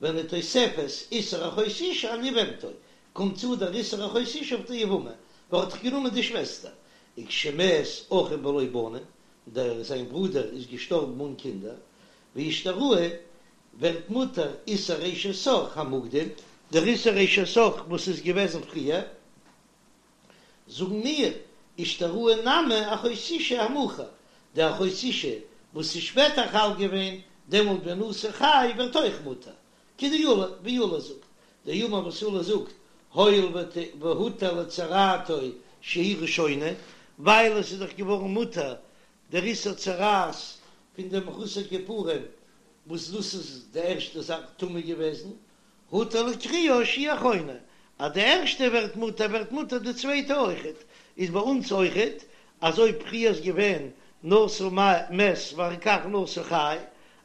ונתוספת איסור אחות אשה על יבמתו, קומט צו דער איסור אחות אשה אויף די יבמה, ווייל ער האט דאך גענומען די שוועסטער, וכשמת אחיו בלא בנים, דער זיין ברודער איז געשטארבן אן קינדער, ואישתראי, ווערט מותר איסור אשת אח המוקדם, דער איסור אשת אח וואס איז געוועזן פריער. זאגן מיר, אישתראי נמי אחות אשה המאוחר, די אחות אשה וואס איז שפעטער חל געווען, דעמאלט ונשא חי ווערט אויך מותר, כדעולא, ווי עולא זאגט, דאמר וואס עולא זאגט, הואיל והותר לצרעתו שהיא ראשונה, ווייל עס איז דאך געווארן מותר דער איסור צרעת פון דעם מחוסר כיפורים, וואס דאס איז די ערשטע זאך טמא געוועזן, הותר לקרויה שהיא אחרונה, אז די ערשטע ווערט מותר ווערט מותר די צווייטע אויכעט, איז ביי אונז אויכעט אז אויב פריער איז געווען נשא מת ואחר כך נשא חי,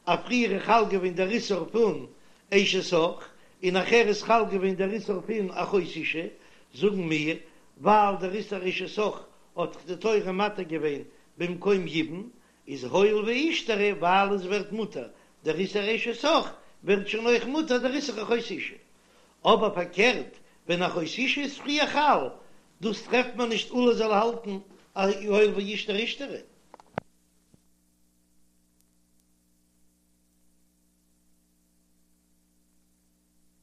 אז פריער איז חל געווען דער איסור פון אשת אח און נאכער איז חל געווען דער איסור פון אחות אשה, זאגן מיר ווייל דער איסור אשת אח האט די תורה מתיר געווען במקום יבום, איז הואיל ואישתרי ווייל עס ווערט מותר דער איסור אשת אח ווערט שוין אויך מותר דער איסור אחות אשה. אבער פארקערט ווען אחות אשה איז פריער חל, דאס טרעפט מען נישט עולא זאל האלטן אז הואיל ואישתרי אישתרי.